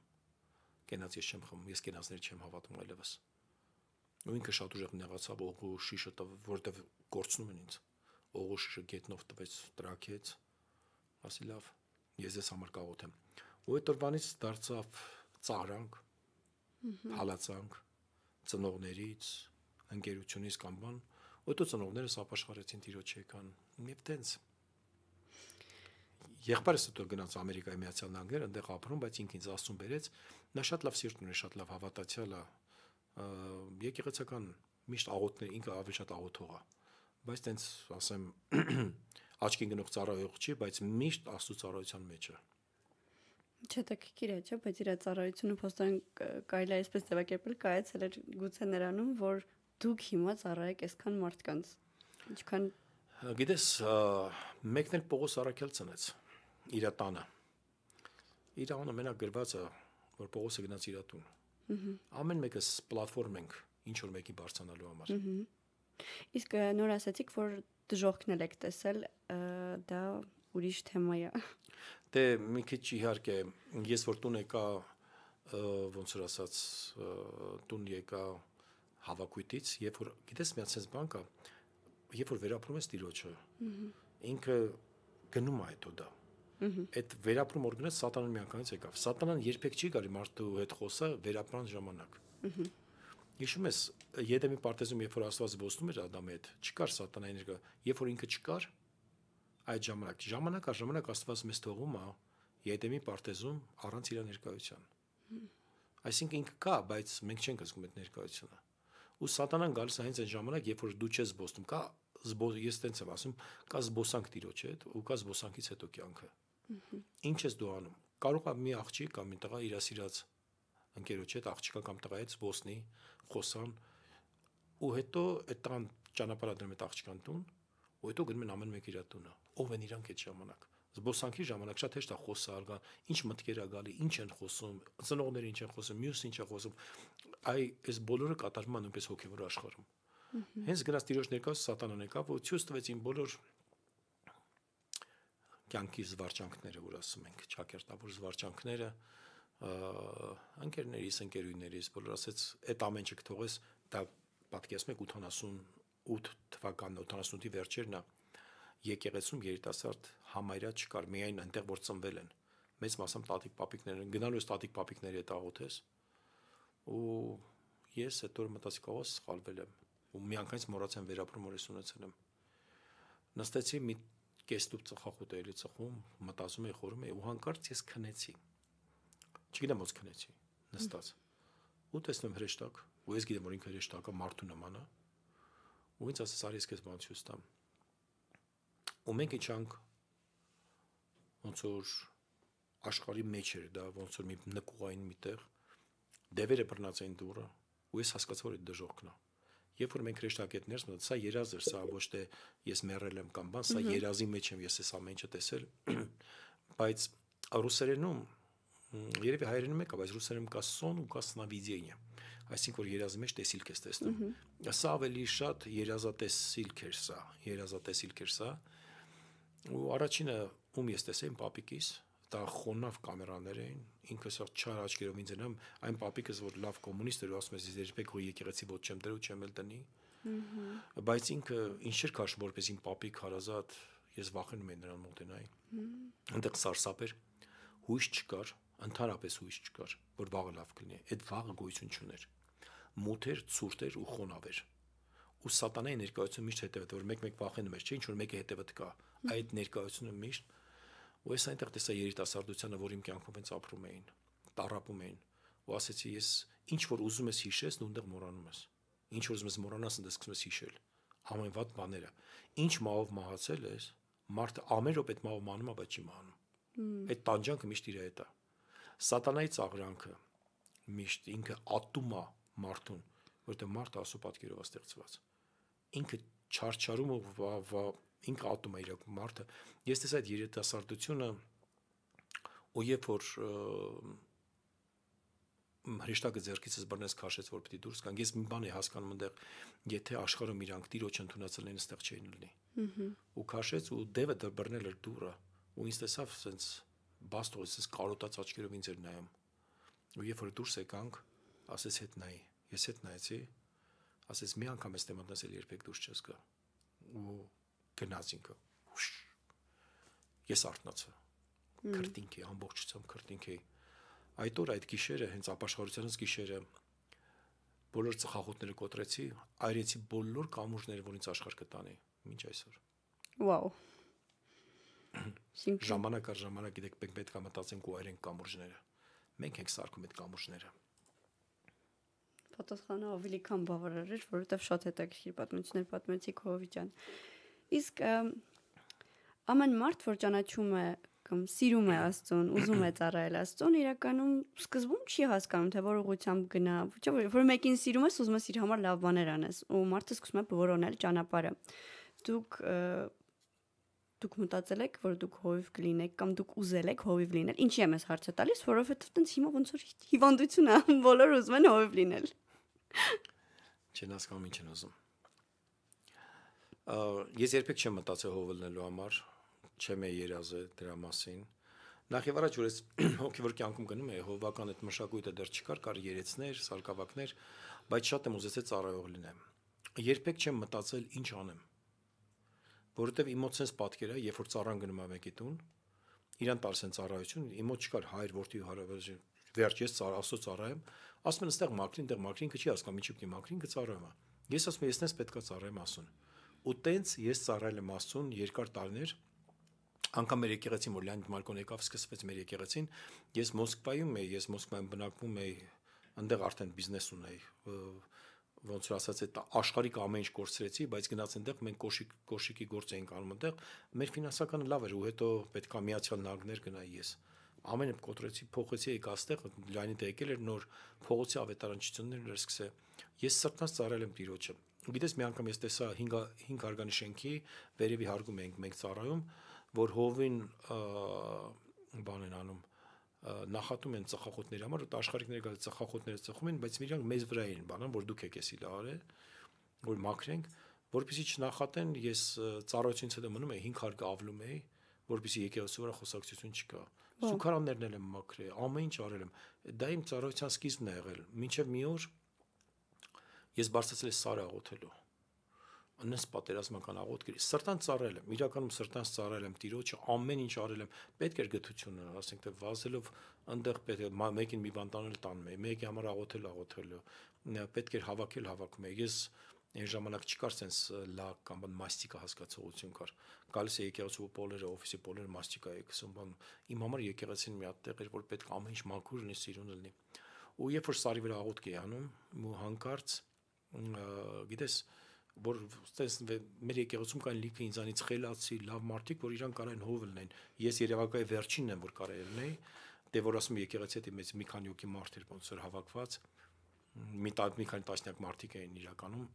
կենաց ես չեմ խմում ես կենացներ չեմ հավատում այլևս ու ինքը շատ ուժեղ նեղացավ օղու շիշը որտեվ կորցնում են ինձ օղու շիշը գետնով տվեց տրակեց ասի լավ ես ես համար կաղոթեմ ու այդ օրվանից դարձավ ծաղրանք հալածանք ծնողներից ընկերությունից կամ բան ու այդ ծնողներս ապաշխարեցին Տիրոջ եկան եւ տենց եղբայրս հետո գնաց Ամերիկայի Միացյալ Նահանգներ այնտեղ ապրում բայց ինքը ինձ Աստծուն բերեց նա շատ լավ սիրտ ունի շատ լավ հավատացյալ է եկեղեցական միշտ աղոթներ ինքը ավելի շատ աղոթող է բայց տենց ասեմ աչքին գնող ծառայող չի բայց միշտ Աստծո ծառայության մեջ է Չտակիր է, չէ՞, բայց իր ծառայությունը փոստան կարելի է այսպես ձևակերպել, կայացել էր գուցե նրանում, որ դուք հիմա ծառայեք այսքան մարդկանց։ Ինչքան գիտես, մեկն էլ Պողոս Արաքյալ ծնեց իր տանը։ Իր անունը մենակ գրված է, որ Պողոսը գնաց իր տուն։ Ամեն մեկս պլատֆորմ ենք, ինչ որ մեկի բարձրանալու համար։ Իսկ նոր ասացիք, որ դժողքն եք տեսել, դա ուրիշ թեմա է։ Դե մի քիչ իհարկե ես որ տուն եկա ոնց որ ասած տուն եկա հավաքույթից երբ որ գիտես մի հատ բան կա երբ որ վերապրում ես Տիրոջը ինքը գնում է հետո դա այդ վերապրում որ գնաց սատանան միանգամից եկավ սատանան երբեք չի գալի մարդու հետ խոսա վերապրան ժամանակ հիշում ես Եդեմի պարտեզում երբ որ Աստված ոսնում էր Ադամի հետ չկար սատանայի ներկա երբ որ ինքը չկար այդ ժամանակ առ ժամանակ Աստված մեզ թողում է Եդեմի պարտեզում առանց իր ներկայության այսինքն ինքը կա բայց մենք չենք զգում այդ ներկայությունը ու սատանան գալիս է հենց այն ժամանակ երբ որ դու չես զբոսնում կա ես տենց եմ ասում կա զբոսանք Տիրոջ հետ ու կա զբոսանքից հետո կյանքը ինչ ես դու անում կարող է մի աղջիկ կամ մի տղա իր սիրած ընկերոջ հետ աղջիկա կամ տղայի հետ զբոսնի խոսան ու հետո այդ տղան ճանապարհադրում է աղջկան տուն ու հետո գնում են ամեն մեկ իր տունը ով են իրանք այդ ժամանակ զբոսանքի ժամանակ շատ հեշտ է խոսալ գա ինչ մտքեր է գալի ինչ են խոսում ծնողները ինչ են խոսում մյուսը ինչ է խոսում այս բոլորը կատարվում է նույնպես հոգևոր աշխարհում հենց գնաց Տիրոջ ներկայացում սատանան եկավ ու ցույց տվեց իմ բոլոր կյանքի զվարճանքները, որ ասում ենք, ճակերտավոր զվարճանքները, ընկերներիս, ընկերուներիս, բոլոր ասեց, այդ ամեն ինչ կթողես, դա պատկերացնում եք 88 թվականն, 88-ի վերջերն է, եկեղեցում երիտասարդ համարյա չկար, միայն այնտեղ որ ծնվել են, մեծ մասամբ տատիկ պապիկներ են, գնալու ես տատիկ պապիկների հետ աղոթես, ու ես այդ օրը մտածի կողոս սխալվել եմ, ու միանգամից մոռացեմ վերապրում որ ես ունեցել եմ, նստեցի մի կեստուփ ծխախոտ էլի ծխում, մտածում էի, խորում էի, ու հանկարծ ես քնեցի, չգիտեմ ոնց քնեցի, նստած, ու տեսնում հրեշտակ, ու ես գիտեմ որ ինքը հրեշտակը մարդու նման է, ու ինձ ասես արի ես քեզ բան ցույց տամ, ու մենք իջանք ոնց որ աշխարհի մեջ էր դա, ոնց որ մի նկուղային միտեղ, դևերը բռնած էին դուռը, ու ես հասկացա որ այդ դժոխքն է, երբ որ մենք հրեշտակի հետ ներս մտանք, սա երազ էր, սա ոչ թե ես մեռել եմ կամ բան, սա երազի մեջ եմ ես այս ամեն ինչը տեսել, բայց ռուսերենում երևի հայերենում եկա, բայց ռուսերենում կա սոն ու կա սնավիդիենիա, այսինքն որ երազի մեջ տեսիլք ես տեսնում, սա ավելի շատ երազատեսիլք էր սա, ու առաջինը ում ես տեսել իմ պապիկիս, դա խոնավ կամերաներ էին, ինքը սա չար աչքերով ինձ ենամ, այն պապիկս որ լավ կոմունիստ էր ու ասում ես երբեք հո եկեղեցի ոչ չեմ դրու, չեմ էլ տնի, բայց ինքը ինչ էր քաշում որպես իմ պապիկ հարազատ, ես վախենում եմ նրան մոտենայի, այնտեղ սարսափ էր, հույս չկար, ընդհանրապես հույս չկար, որ վաղը լավ կլինի, այդ վաղը գոյություն չուներ, մութ էր, ցուրտ էր ու խոնավ էր, ու սատանայի ներկայությունը միշտ հետևդ, որ մեկ-մեկ վախենում ես, չէ, ինչ որ մեկը հետևդ կա, այդ ներկայությունը միշտ, ու ես այնտեղ տեսա երիտասարդությանը, որ իմ կյանքում հենց ապրում էին, տառապում էին, ու ասեցի ես, ինչ որ ուզում ես հիշես, դու այնտեղ մոռանում ես, ինչ որ ուզում ես մոռանաս, այնտեղ սկսում ես հիշել, ամեն վատ բաները, ինչ մահով մահացել ես, մարդը ամեն րոպե այդ մահով մահանում է, բայց չի մահանում, այդ տանջանքը միշտ իր հետ է, սատանայի ծաղրանքը միշտ ինքը ատում է մարդուն, որտեղ մարդը Աստծո պատկերով է ստեղծված, ինքը չարչարում ինքը ատում է իրոք մարդը, ես տեսա այդ երիտասարդությունը, ու երբ որ հրեշտակը ձեռքիցս բռնեց քաշեց, որ պիտի դուրս գանք, ես մի բան էի հասկանում այնտեղ, եթե աշխարհում իրանք տիրոջ ընդունացել են, այստեղ չէին լինի, ու քաշեց ու դևը բռնել էր դուռը, ու ինձ տեսավ սենց բաստո, սենց կարոտած աչքերով ինձ էր նայում, ու երբ որ դուրս եկանք, ասեց հետ նայի, ես հետ նայեցի, ասեց մի անգամ ես մտնես էլ երբեք դուրս չես գա, ու գնաց ինքը, ես արթնացա, քրտինք էի, ամբողջությամբ քրտինք էի, այդ օր այդ գիշերը, հենց ապաշխարությանս գիշերը, բոլոր ծխախոտները կոտրեցի, այրեցի բոլոր կամուրջները, որ ինձ աշխարհ կտանի, մինչ այսօր։ Վաու։ Ժամանակ առ ժամանակ գիտեք պետք է մտածենք ու այրենք կամուրջները, մենք ենք սարքում այդ կամուրջները։ Պատասխանը ավելի քան բավարար էր, որովհետև շատ հետաքրքիր պատմություններ պատմեցիք Հովի ջան։ Իսկ ամեն մարդ, որ ճանաչում է կամ սիրում է Աստծուն, ուզում է ծառայել Աստծուն, իրականում սկզբում չի հասկանում, թե որ ուղղությամբ գնա, որ մեկին սիրում ես, ուզում ես իր համար լավ բաներ անես, ու մարդը սկսում է որոնել ճանապարհը։ Դուք մտածել եք, որ դուք հովիվ կլինեք կամ դուք ուզել եք հովիվ լինել։ Ինչի եմ ես հարցը տալիս, որովհետև տենց հիմա ոնց որ հիվանդություն է, բոլորը ուզում են հովիվ լինել։ Չեն հասկանում ինչ են ուզում։ Ես երբեք չեմ մտածել հովելնելու համար, չեմ երազել դրա մասին։ Նախ եւ առաջ որ ես հոգեվոր կյանքում գնում եի, հովվական այդ մշակույթը դեռ չկար, կար երեցներ, սարկավակներ, բայց շատ եմ ուզեցել ծառայող լինեմ։ Երբեք չեմ մտածել ինչ անեմ։ Որովհետև իմ մոտ sense պատկեր է, երբ որ ծառան գնում է մեկի տուն, իրան տալիս են ծառայություն, իմ մոտ չկար հայր, որդի հարաբերություն, վերջ ես Աստծո ծառայեմ, ասում են այստեղ մաքրին, այդտեղ մաքրին, ինքը չի հասկանում, ինչի՞ պիտի մաքրին, կծառայեմ։ Ես ասում եմ, ես նես պետքա ծառայեմ Աստծուն։ Ու տենց ես ծառայել եմ Աստծուն երկար տարիներ, անգամ մեր եկեղեցին, որ Լեոնիդ Մարկոն եկավ, սկսվեց մեր եկեղեցին, ես Մոսկվայում էի, ես Մոսկվայում բնակվում էի, այնտեղ արդեն բիզնես ունեի, ոնց որ ասած այդ աշխարհիկ ամեն ինչ կորցրեցի, բայց գնաց այնտեղ մենք կոշիկի գործ էինք անում այնտեղ, մեր ֆինանսականը լավ էր ու հետո պետքա Միացյալ Նահանգներ գնայի ես։ Ամենը կոտրեցի, փոխեցի եկա այստեղ, Լեոնիդը եկել էր նոր փողոցի ավետարանչություններն էր սկսել։ Ես սրտնաս ծառայել եմ Տիրոջը։ Գիտես մի անգամ ես տեսա 5 հարգանի շենքի վերևի հարգում էինք մենք ծառայում, որ հովին բան են անում նախատում են ծխախոտների համար, ու աշխարհիկները գալիս ծխախոտները ծխում են, բայց իրանք մեզ վրա են բանան, որ դուք եք էսի լարել, որ մաքրենք, որպեսզի չնախատեն, ես ծառայությունից հետո մնում էի 5 հարգ ավլում էի, որպեսզի եկեղեցու վրա խոսակցություն չկա։ Սուքարաններն եմ մաքրել, ամեն ինչ արել եմ։ Դա իմ ծառայության սկիզբն է եղել։ Մինչև մի օր ես բարձրացել եմ Սարը աղոթելու։ Աննես պատերազմական աղոթքերի սրտան ծառայել եմ, իրականում սրտանց ծառայել եմ Տիրոջը, ամեն ինչ արել եմ, պետք էր գթությունը, ասենք թե վազելով այնտեղ պետք է մեկին մի բան տանել տանում, մեկի համար աղոթելու, պետք էր հավաքում եմ։ Ես այն ժամանակ չկար sense լակ կամ մաստիկա հասկացողություն կար։ Գալիս է եկեղեցու պոլերը, օֆիսի պոլերը մաստիկա է գցում բան։ Իմ համար եկեղեցին մի հատ տեղ էր, որ պետք ամեն ինչ մաքուր լինի, սիրուն լինի։ Ու երբ որ Սարի վրա աղոթք էի անում, ու հանկարծ գիտես որ մեր եկեղեցում կային լիքը ինձանից խելացի, լավ մարդիկ, որ իրան կարային հով լինեն։ Ես Երևակայի վերջինն եմ, որ կարայի լինեի, դե որ ասում եկեղեցի հետ մեծ մի քանի հոգի մարդ էր ոնց որ հավաքված, մի քանի տասնյակ մարդիկ էին իրականում։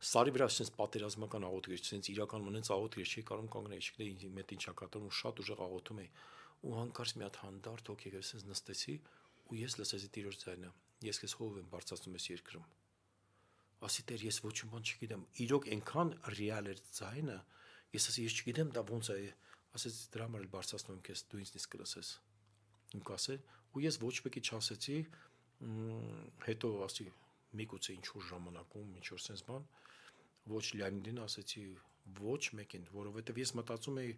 Սարի վրա sense պատերազմական աղոթքեր, sense իրականում ունենց աղոթքեր չի կարող կանգնել, չգիտեի ինձ մետ ինչա կատարում, շատ ուժեղ աղոթում էի։ Ու հանկարծ մի հատ հանդարտ հոգի sense նստեցի ու ես լսեցի Տիրոջ ձայնը։ Ես քեզ հով եմ բարձրացնում ես երկրում։ Ասի Տեր, ես ոչ մի բան չգիտեմ։ Իրոք այնքան ռեալ էր ձայնը, ես ասի ես չգիտեմ դա ոնց է, ասեց դրա համար էլ բարձրացնում եմ քեզ, դու ինձնից կլսես։ Ու կասել, ու ես ոչ մեկի չասեցի, հետո ասի միգուցե ինչ որ ժամանակում, ինչ որ sense բան, ոչ Լեոնիդին ասեցի, ոչ մեկին, որովհետև ես մտածում էի,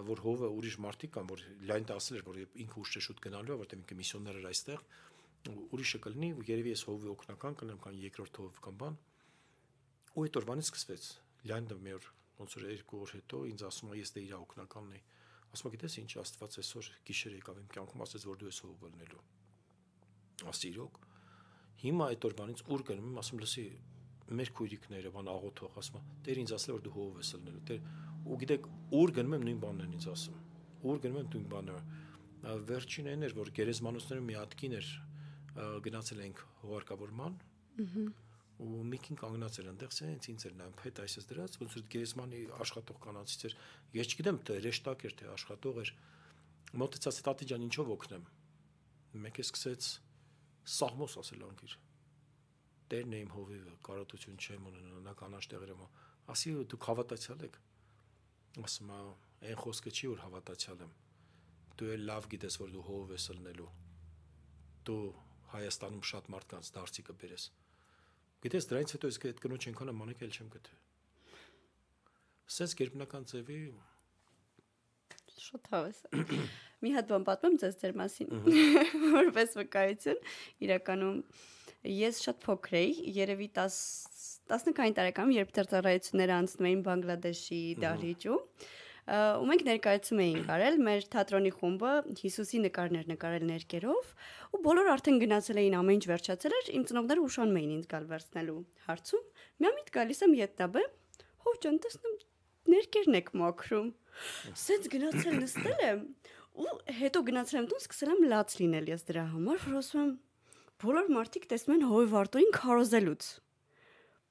որ հովը ուրիշ մարդիկ կան, որ Լեոնիդը ասել էր, որ ինքը ուշ շուտ գնալու է, որտեղ ինքը միսիոներ էր այստեղ, ուրիշը կլինի, ու երևի ես հովի օգնական կլինեմ կամ երկրորդ հով կամ բան։ Ու այդ օրվանից սկսվեց։ Լեոնիդը մի օր ոնց որ 2 օր հետո ինձ ասում է, ես դե իր օգնականն եմ։ Ասում է, գիտես ինչ, Աստված այսօր գիշեր եկավ իմ կյանքում, ասեց, որ դու ես հովը լինելու։ Ասի իրոք։ Հիմա այդ օրվանից ուր գնում եմ, ասում լսի, մեր քույրիկները բան աղոթող, ասում է, Տեր ինձ ասել որ դու հով ես լինելու։ Տեր ու գիտեք, ուր գնում եմ նույն բանն են ինձ ասում։ Ուր գնում եմ նույն բանը։ Վերջին այն էր, որ գերեզմանոցներում մի հատ կին էր, գնացել ենք հողարկավորման։ Ու միկին կանգնած էր այնտեղ, սենց ինձ էր նայում, հետ այսպես դրած, ոնց որ գերեզմանի աշխատող կանանցից էր։ Ես չգիտեմ, թե ռեշտակ էր, թե աշխատող էր։ Մոտեցած տատի ջան, ինչով օգնեմ։ Մեկը սկսեց սաղմոս ասել անկիր։ Տերն է իմ հովիվը, կարոտություն չեմ ունենա, նա կանաչ տեղերում։ Ասի դուք հավատացյալ եք։ Ասում է, այն խոսքը չի որ հավատացյալ եմ։ Դու էլ լավ գիտես, որ դու հով ես լինելու։ Դու Հայաստանում շատ մարդկանց դարձի կբերես։ Գիտես դրանից հետո ես այդ կնոջ այնքան մանեկ էլ չեմ գտել։ Սենց գերբնական ձևի Շատ հավես։ Մի հատ բան պատմեմ ձեզ ձեր մասին, որպես վկայություն, իրականում ես շատ փոքր էի, երևի 19 տարեկանում, երբ դեռ ծառայությունները անցնում էին Բանգլադեշի դահլիճում, ու մենք ներկայացում էինք արել, մեր թատրոնի խումբը Հիսուսի նկարներ նկարել ներկերով, ու բոլորը արդեն գնացել էին, ամեն ինչ վերջացել էր, իմ ծնողները ուշանում էին ինձ գալ վերցնելու հարցում։ Միամիտ գալիս եմ ետնաբե, հով ջան, տեսնում ներկերն եք մաքրում։ Սենց գնացել նստել եմ, ու հետո գնացել եմ տուն, սկսել եմ լաց լինել ես դրա համար, որ ասում եմ բոլոր մարդիկ տեսնում են հովի վարտորին քարոզելուց։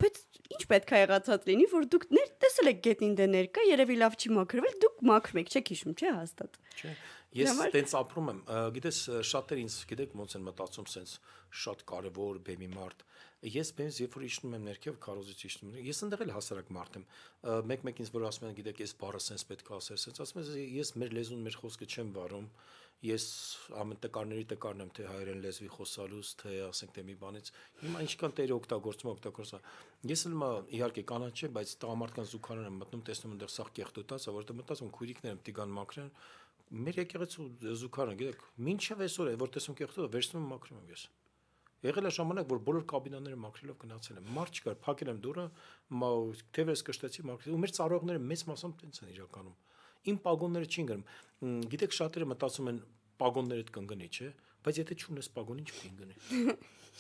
Բայց ինչ պետք է եղածած լինի, որ դուք տեսել եք գետնին դե ներկա, երևի լավ չի մաքրվել, դուք մաքրում եք, չեք հիշում, չէ՞ հաստատ։ Չէ։ Ես տենց ապրում եմ, գիտես, շատեր ինձ գիտեք ոնց են մտածում, սենց շատ կարևոր բեմի մարդ։ Ես բեմից երբ որ իջնում եմ ներքև, քարոզից իջնում եմ, ես ընդեղ էլ հասարակ մարդ եմ։ Մեկ ինձ որ ասում են, գիտեք, ես բառը սենց պետք է ասել, սենց ասում եմ, ես մեր լեզուն, մեր խոսքը չեմ վարում։ Ես ամեն տկարների տկարն եմ, թե հայերեն լեզվի խոսալուց, թե ասենք թե մի բանից։ Հիմա ինչքան տերը օգտագործում։ Ես էլ իհարկե կանաչ չէ, բայց տղամարդկանց զուգարան եմ մտնում, տեսնում այնտեղ սաղ կեղտոտած, որովհետեւ մտածում քույրիկներ եմ տիգան մաքրեն։ Մեր եկեղեցու զուգարան, գիտեք, մինչև այսօր է, որ տեսնում կեղտոտը, վերցնում եմ մաքրում եմ ես։ Եղել է ժամանակ, որ բոլոր կաբինաները մաքրելով գնացել եմ։ Մարդ չկար, փակել եմ դուռը, թևերս կշտեցի, մաքրել։ Ու մեր ծառայողները մեծ մասամբ տենց են իրականում։ Իմ պագոնները չին գնում։ Գիտեք, շատերը մտածում են պագոններդ կընկնի, չէ՞, բայց եթե չունես պագոն, ինչ կընկնի։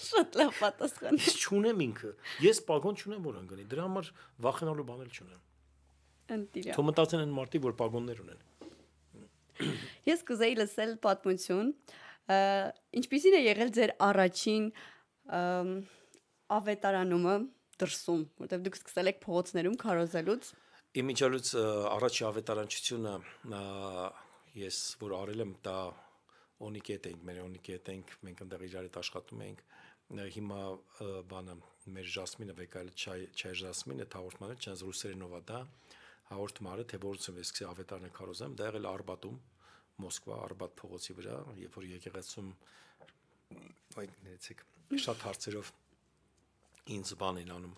Շատ լավ պատասխան։ Ես չունեմ ինքը։ Ես պագոն չունեմ, որ ընկնի։ Դրա համար վախենալու բան էլ չունեմ։ Ընտիրա։ Թող մտածեն են մարդիկ, որ պագոններ ունեն։ Ես կուզեի լսել պատմություն, ինչպիսին է եղել ձեր առաջին ավետարանումը դրսում, որտեղ դուք սկսել եք փողոցներում քարոզելուց։ Իմիջիալուց առաջի ավետարանչությունը ես որ արել եմ, դա Օնիկետ էինք, մեր Օնիկետ էինք, մենք այնտեղ իրար հետ աշխատում էինք։ Հիմա բանը մեր Ժասմինը վեկայել Չայ Ժասմինը հաղորդմանը չանց ռուսերենով է դա։ հաղորդում արել, թե որից եմ սկսի ավետարանը քարոզեմ, դա եղել Արբատում, Մոսկվա, Արբատ փողոցի վրա, երբ որ եկեղեցում այդ ներեցեք շատ հարցերով ինձ բան են անում,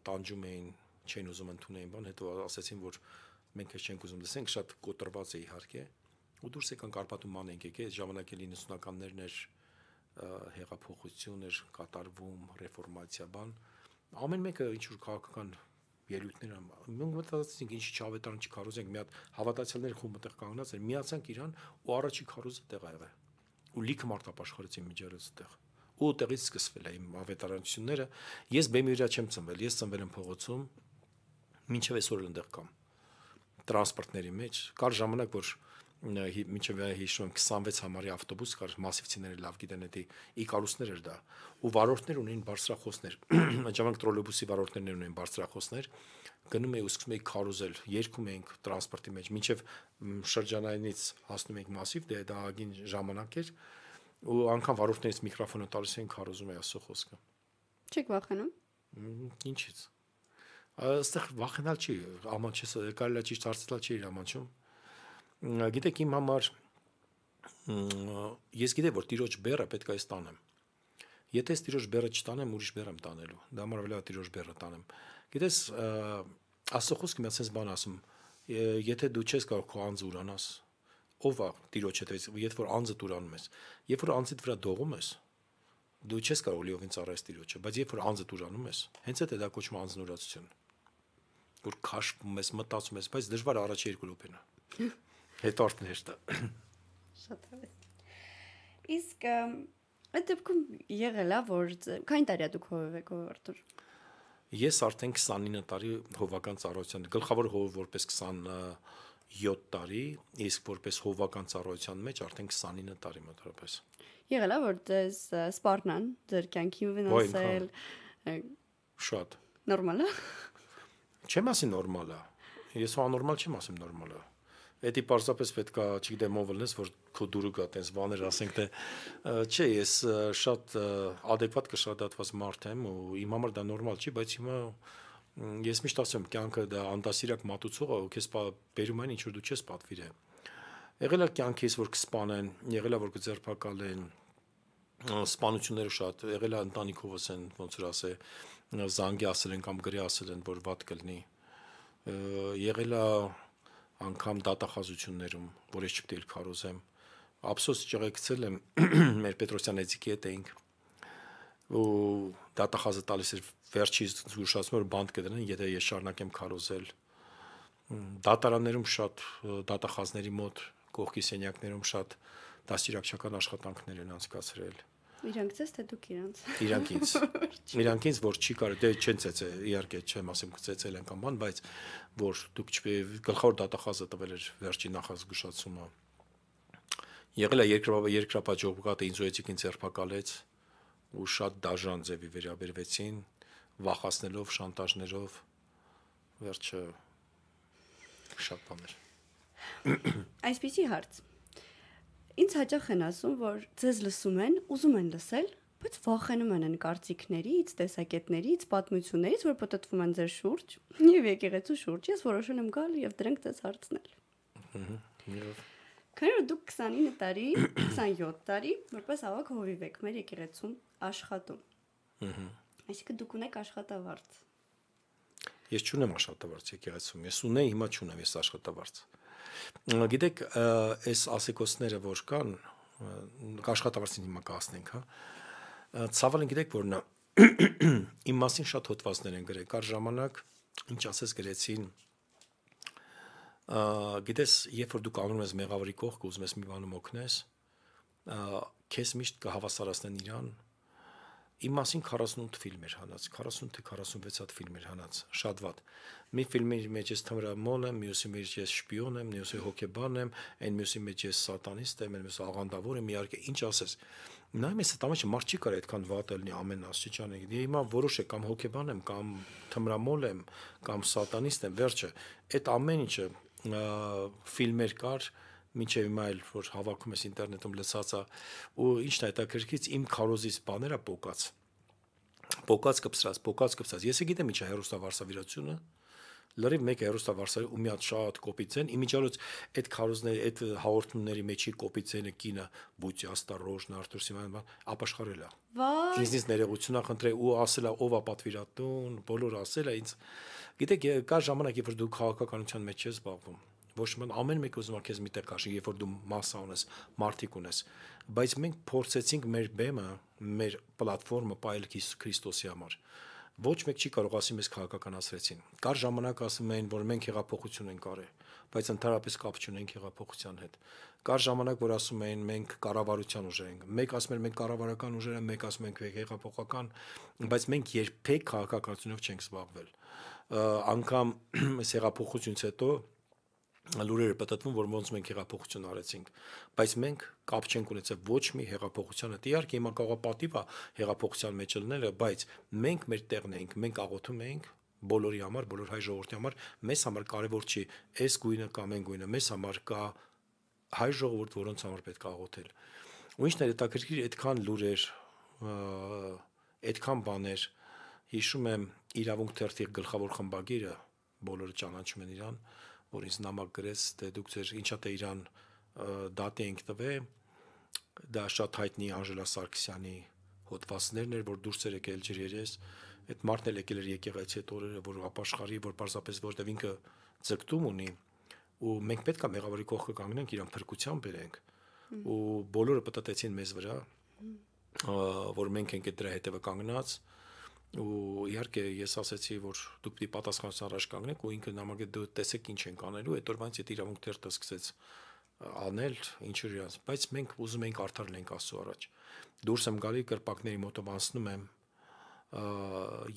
տանջում էին, չեն ուզում ընդունեին բան, հետո ասացին, որ մենք ես չենք ուզում լսենք, շատ կոտրված է իհարկե, ու դուրս եկանք Արբատում ման ենք եկել, ժամանակ էլ 90-ականներն էր, հեղափոխություն էր կատարվում, ռեֆորմացիա բան, ամեն մեկը ինչ որ քաղաքական ելույթներ մենք մտածեցինք ինչի չավետարան չքարոզենք, մի հատ հավատացյալներ խումբ այդտեղ կանգնած էր, միացանք իրան ու առաջի քարոզը տեղ ա եղել, ու լիքը մարդ ապաշխարեցին միջերից տեղ, ու տեղից սկսվել է իմ ավետարանությունները, ես բեմի վրա չեմ ծնվել, ես ծնվել եմ փողոցում, մինչև այսօր այնտեղ կամ տրանսպորտների մեջ, կար ժամանակ, որ մինչև հիշում եմ 26 համարի ավտոբուս կար, մասիվցիները լավ գիտեն, դա Իկարուսներ էր դա, ու վարորդներ ունեին բարձրախոսներ, այդ ժամանակ տրոլեյբուսի վարորդներն ունեին բարձրախոսներ, գնում էի ու սկսում էի քարոզել, երգում էինք տրանսպորտի մեջ, մինչև շրջանայինից հասնում էինք մասիվ, դա ագին ժամանակ էր, ու անգամ վարորդներից միկրոֆոնը տալիս էին քարոզում էի Աստծո խոսքը։ Չեք վախենում։ Ինչից։ Այստեղ վախենալ չի, աման չես, կարելի է ճիշտ հարցնել չի իր ամանչում։ Գիտեք իմ համար ես գիտեմ որ տիրոջ բեռը պետք է ստանեմ։ Եթե ես տիրոջ բեռը չտանեմ, ուրիշ բեռ եմ տանելու։ Դա համար վրա տիրոջ բեռը տանեմ։ Գիտես Աստծո խոսքը մի հատ sense բան ասում, եթե դու չես կարող քո անձը ուրանաս, ով է տիրոջ հետևից, երբ որ անձը տուրանում ես, երբ որ անձիդ վրա դողում ես, դու չես կարող լիովին ծառայես տիրոջը, բայց երբ որ անձը տուրանում ես, հենց այդ է դա կոչվում անձնուրացություն։ Որ քաշվում ես, մտածում ես, բայց դժվար առաջի երկու րոպեն է։ Հետո արդեն հեշտ է։ Շատ հավես։ Իսկ այդ դեպքում եղել է որ քանի տարի դուք հովև եք Արտուր։ Ես արդեն 29 տարի հովական ծառայության, գլխավոր հովը որպես 27 տարի, իսկ որպես հովական ծառայության մեջ արդեն 29 տարի մոտավորապես։ Եղել է որ դες սպառնան ձեր կյանքին վնասել։ Շատ։ Նորմալ է։ Չեմ ասի նորմալ է։ Ես աննորմալ չեմ ասում նորմալ է։ Էդի պարզապես պետքա, չգիտեմ ով լնես, որ քո դուրը գա տես բաներ ասենք թե չէ, ես շատ adekvat կշռադատված մարդ եմ ու իմ համար դա նորմալ չի, բայց հիմա ես միշտ ասում եմ, կյանքը դա անդասիրակ մատուցող է, ու քեզ բերում այն ինչ որ դու չես պատվիրել։ Եղել է կյանքից որ կսպանեն, եղել է որ կձերբակալեն, սպանությունները շատ, եղել է ընտանիքովս են, ոնց որ ասե, զանգի ասել են կամ գրի ասել են, որ վատ կլինի։ Եղել է անգամ դատախազություններում, որ ես չպետք է քարոզեմ։ Ափսոս ճղեկցել եմ մեր Պետրոսյան Էձիկի հետ էինք ու դատախազը տալիս էր վերջից զգուշացնում որ բանդ կդնեն, եթե ես շարունակեմ քարոզել։ Դատարաններում շատ դատախազների մոտ կողքի սենյակներում շատ դաստիարակչական աշխատանքներ են անցկացրել։ Իրանք ցես թե դուք իրանց։ Իրանք ինձ որ չի կարելի, դե չեն ծեծե, իհարկե չեմ ասում կծեծել են կամ բան, բայց որ դուք գլխավոր դատախազը տվել էր վերջի նախազգուշացումը։ Եղել է երկրապահ ինձ ու Էձիկին ձերբակալեց ու շատ դաժան ձևի վերաբերվեցին, վախացնելով, շանտաժներով, վերջը շատ բաներ։ Այսպիսի հարց։ Ինձ հաճախ են ասում, որ ձեզ լսում են, ուզում են լսել, բայց վախենում են կարծիքներից, տեսակետներից, պատմություններից, որ պատտվում են ձեր շուրջ, եւ եկեղեցու շուրջ։ Ես որոշել եմ գալ եւ դրանք ձեզ հարցնել։ Քանի որ դուք 29 տարի, 27 տարի, որպես ավակ հովիվ եք մեր եկեղեցում աշխատում։ Այսինքն դուք ունեք աշխատավարձ։ Ես չունեմ աշխատավարձ եկեղեցում, ես ունեի, հիմա չունեմ ես աշխատավարձ։ Գիտեք, այս ասեկոսները որ կան, աշխատավարձին հիմա կհասնենք, հա։ Ցավալին գիտեք որ նա իմ մասին շատ հոդվածներ են գրել, կար ժամանակ, ինչ ասես գրեցին, գիտես, երբ որ դու կանգնում ես մեղավորի կողքը, ուզում ես մի բանում օգնես, քեզ միշտ կհավասարացնեն իրան։ Իմ մասին 48 ֆիլմ էր հանած, 40 թե 46 հատ ֆիլմ էր հանած, շատ վատ։ Մի ֆիլմի մեջ ես թմրամոլ եմ, մյուսի մեջ ես շպիոն եմ, մյուսի հոգեբան եմ, այն մյուսի մեջ ես սատանիստ եմ, մյուսի աղանդավոր եմ, իհարկե, ինչ ասես։ Նայում ես այդ ամենը մարդ չի կարող այդքան վատ լինի ամեն աստիճանի։ Հիմա որոշ է կամ հոգեբան եմ, կամ թմրամոլ եմ, կամ սատանիստ եմ, վերջը։ Այդ ամեն ինչը ֆիլմեր կար, մինչև հիմա էլ որ հավաքում ես ինտերնետում լսածա ու ինչն է հետաքրքրից իմ քարոզից բաները պոկած կպսրած ես գիտեմ ինչա հերոստավարսավիրությունը լրիվ մեկ հերոստավարսարի ու մի հատ շատ կոպիտ ձեն, իմիջիալոց այդ քարոզների, այդ հաղորդումների մեջի կոպիտ ձենը կինը Բուծի Աստարոժն Արտուր Սիմոնյան ապաշխարել է։ Վայ, Ինձնից ներողություն ախնդրել ու ասել է ով է պատվիրատուն, բոլորը ասել է ինձ։ Գիտեք, կա ժամանակ, երբ որ դու քաղաքականության մեջ ես զբաղվում, ոչ մի ամեն մեկ ուզում է քեզ միտեղ քաշի, երբ որ դու մասսա ունես, մարտիկ ունես, բայց մենք փորձեցինք մեր բեմը, մեր պլատֆորմը պայել Քրիստոսի համար։ Ոչ մեկ չի կարող ասի մեզ քաղաքականացրեցին։ Կար ժամանակ ասում էին, որ մենք հեղափոխություն ենք արել, բայց ընդհանրապես կապ չունենք հեղափոխության հետ։ Կար ժամանակ, որ ասում էին մենք կառավարության ուժեր ենք։ Մեկ ասում են մենք կառավարական ուժեր ենք, մեկ ասում ենք հեղափոխական, բայց մենք երբեք քաղաքականությունով չենք զբաղվել։ Անկամ այս հեղափոխությունից հետո լուրերը պատտվում, որ ոնց մենք հեղափոխություն արեցինք, բայց մենք կապ չենք ունեցել ոչ մի հեղափոխության հետ։ Իհարկե հիմա կարող է պատիվ է հեղափոխության մեջ լինելը, բայց մենք մեր տեղն էինք, մենք աղոթում էինք բոլորի համար, բոլոր հայ ժողովրդի համար, մեզ համար կարևոր չի այս գույնը կամ այն գույնը, մեզ համար կա հայ ժողովուրդ, որոնց համար պետք է աղոթել։ Ու ինչն է հետաքրքիր, այդքան լուրեր, այդքան բաներ, հիշում եմ իրավունք թերթի գլխավոր խմբագիրը, բոլորը ճանաչում են իրան, որ ինձ նամակ գրեց, թե դուք ձեր ինչա թե իրան դատի ենք տվել, դա շատ հայտնի Անժելա Սարգսյանի հոդվածներն էր, որ դուրս էր եկել ջրերես, այդ մարդն էլ եկել էր եկեղեցի այդ օրերը, որ ապաշխարի, որ պարզապես որտեվ ինքը ձգտում ունի, ու մենք պետք է մեղավորի կողքը կանգնենք, իրան փրկության բերենք, ու բոլորը պատտեցին մեզ վրա, որ մենք ենք դրա հետևը կանգնած, ու իհարկե ես ասացի, որ դուք պիտի պատասխանատվության առաջ կանգնեք, ու ինքը նամակը դու տեսեք ինչ ենք անելու, այդ օրվանից այդ իրավունք թերթը սկսեց անել, ինչ էր իրաց, բայց մենք ուզում էինք արդար լինենք Աստծո առաջ։ Դուրս եմ գալի կրպակների մոտով անցնում եմ,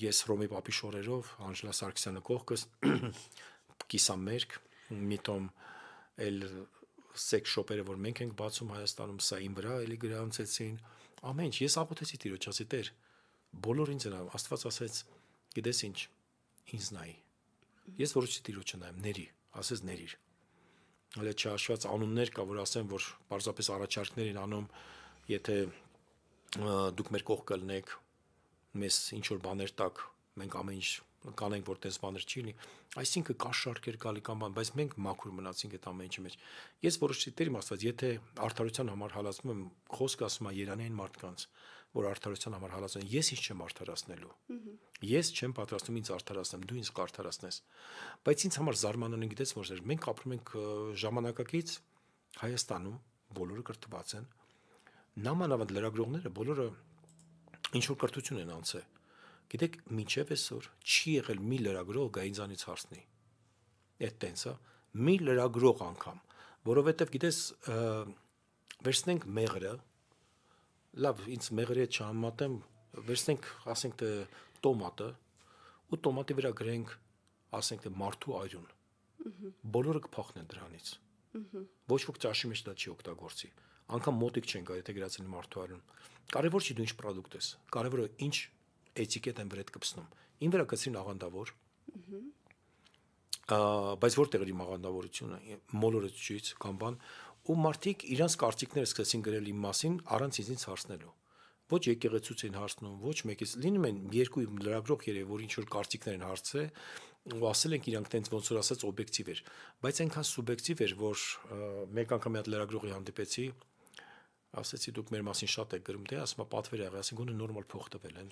ես Հռոմի պապի շորերով, Անժելա Սարգսյանը կողքս, կիսամերկ, մի տոմ էլ սեքս շոպերը, որ մենք ենք բացում Հայաստանում, սա իմ վրա էլի գրանցեցին, ամեն ինչ, ես աղոթեցի Տիրոջ, ասի Տեր, բոլոր ինձ են, Աստված ասեց, գիտես ինչ, ինձ նայի։ Ես որոշեցի Տիրոջը նայեմ, ների, ասես ներիր։ Հələ չհաշված անուններ կա, որ ասեմ, որ պարզապես առաջարկներ են անում, եթե դուք մեր կողքը լինեք, մեզ ինչ որ բաներ տակ, մենք ամեն ինչ կանենք, որ տես բաներ չի լինի, այսինքն կա շարքեր գալի կամ բան, բայց մենք մաքուր մնացինք այդ ամեն ինչի մեջ։ Ես որոշեցի Տեր իմ Աստված, եթե արդարության համար հալածվում եմ, խոսքը ասում է Երանային մարդկանց, որ արդարության համար հալածեն, ես ինչ չեմ արդարացնելու։ Ես չեմ պատրաստում ինձ արդարացնեմ, դու ինձ կարդարացնես։ Բայց ինձ համար զարմանալի գիտես որ մենք ապրում ենք ժամանակակից Հայաստանում, բոլորը կրթված են, նամանավանդ լրագրողները բոլորը ինչ որ կրթություն են անցել։ Գիտեք, մինչև այսօր չի եղել մի լրագրող գա ինձանից հարցնի։ Այդ տենսը մի լրագրող անգամ, որովհետև գիտես վերցնենք մեղրը, լավ, ինձ մեղրի հետ չհամատեմ, վերցնենք, ասենք թե տոմատը, ու տոմատի վրա գրենք, ասենք թե մարդու այրուն։ Բոլորը կփախնեն դրանից։ Ոչ ոք ճաշի մեջ դա չի օգտագործի։ Անկամ մոտիկ չեն գա, եթե գրածել մարդու այրուն։ Կարևոր չի դու ինչ պրոդուկտ ես, կարևորը ինչ էտիկետ են վրեդ կպցնում։ Ին վրա կցին աղանդավոր։ Բայց որտեղ է իմ աղանդավորությունը, մոլորեցուց կամ բան, ու մարդիկ իրանց կարծիքները սկսեցին գրել իմ մասին առանց ինձ հարցնելու։ Ոչ եկեղեցուց են հարցնում, ոչ մեկից լինում են երկու լրագրող երևի, որ ինչ որ կարծիքներ են հարցրել, ու ասել ենք իրանք տենց ոնց որ ասած օբյեկտիվ էր, բայց այնքան սուբյեկտիվ էր, որ մեկ անգամ մի հատ լրագրողի հանդիպեցի, ասեցի դուք մեր մասին շատ եք գրում, դե ասում պատվեր եղել, ասի գոնե նորմալ փող տվել են։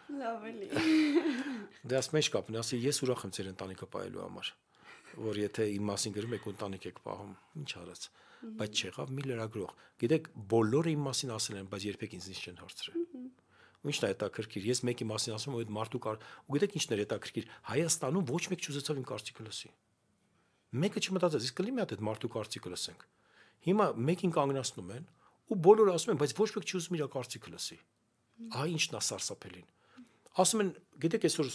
լավ էլի։ Դե ասում մեջ կապն, ասի ես ուրախ եմ ձեր ընտանիքը պահելու համար, որ եթե իմ մասին գրում եք ընտանիք եք պահում, ինչ արած, բայց չեղավ մի լրագրող։ Գիտեք, բոլորը իմ մասին ասել են, բայց երբեք ինձ չեն հարցրել։ Ու ինչն է հետաքրքիր, ես մեկի մասին ասում եմ, այդ մարդու կար, ու գիտեք ինչն է հետաքրքիր, Հայաստանում ոչ մեկ չուզեցավ իմ կարծիքը լսի։ Մեկը չմտածեց, իսկ կլինի մի հատ այդ մարդու կարծիքը լսենք։ Հիմա մեկին կանգնացնում են, ու բոլորը ասում են, բայց ոչ մեկ չի ուզում իր կարծիքը լսի։ Ահա ինչն է սարսափելին։ Ասում են, գիտեք, այսօր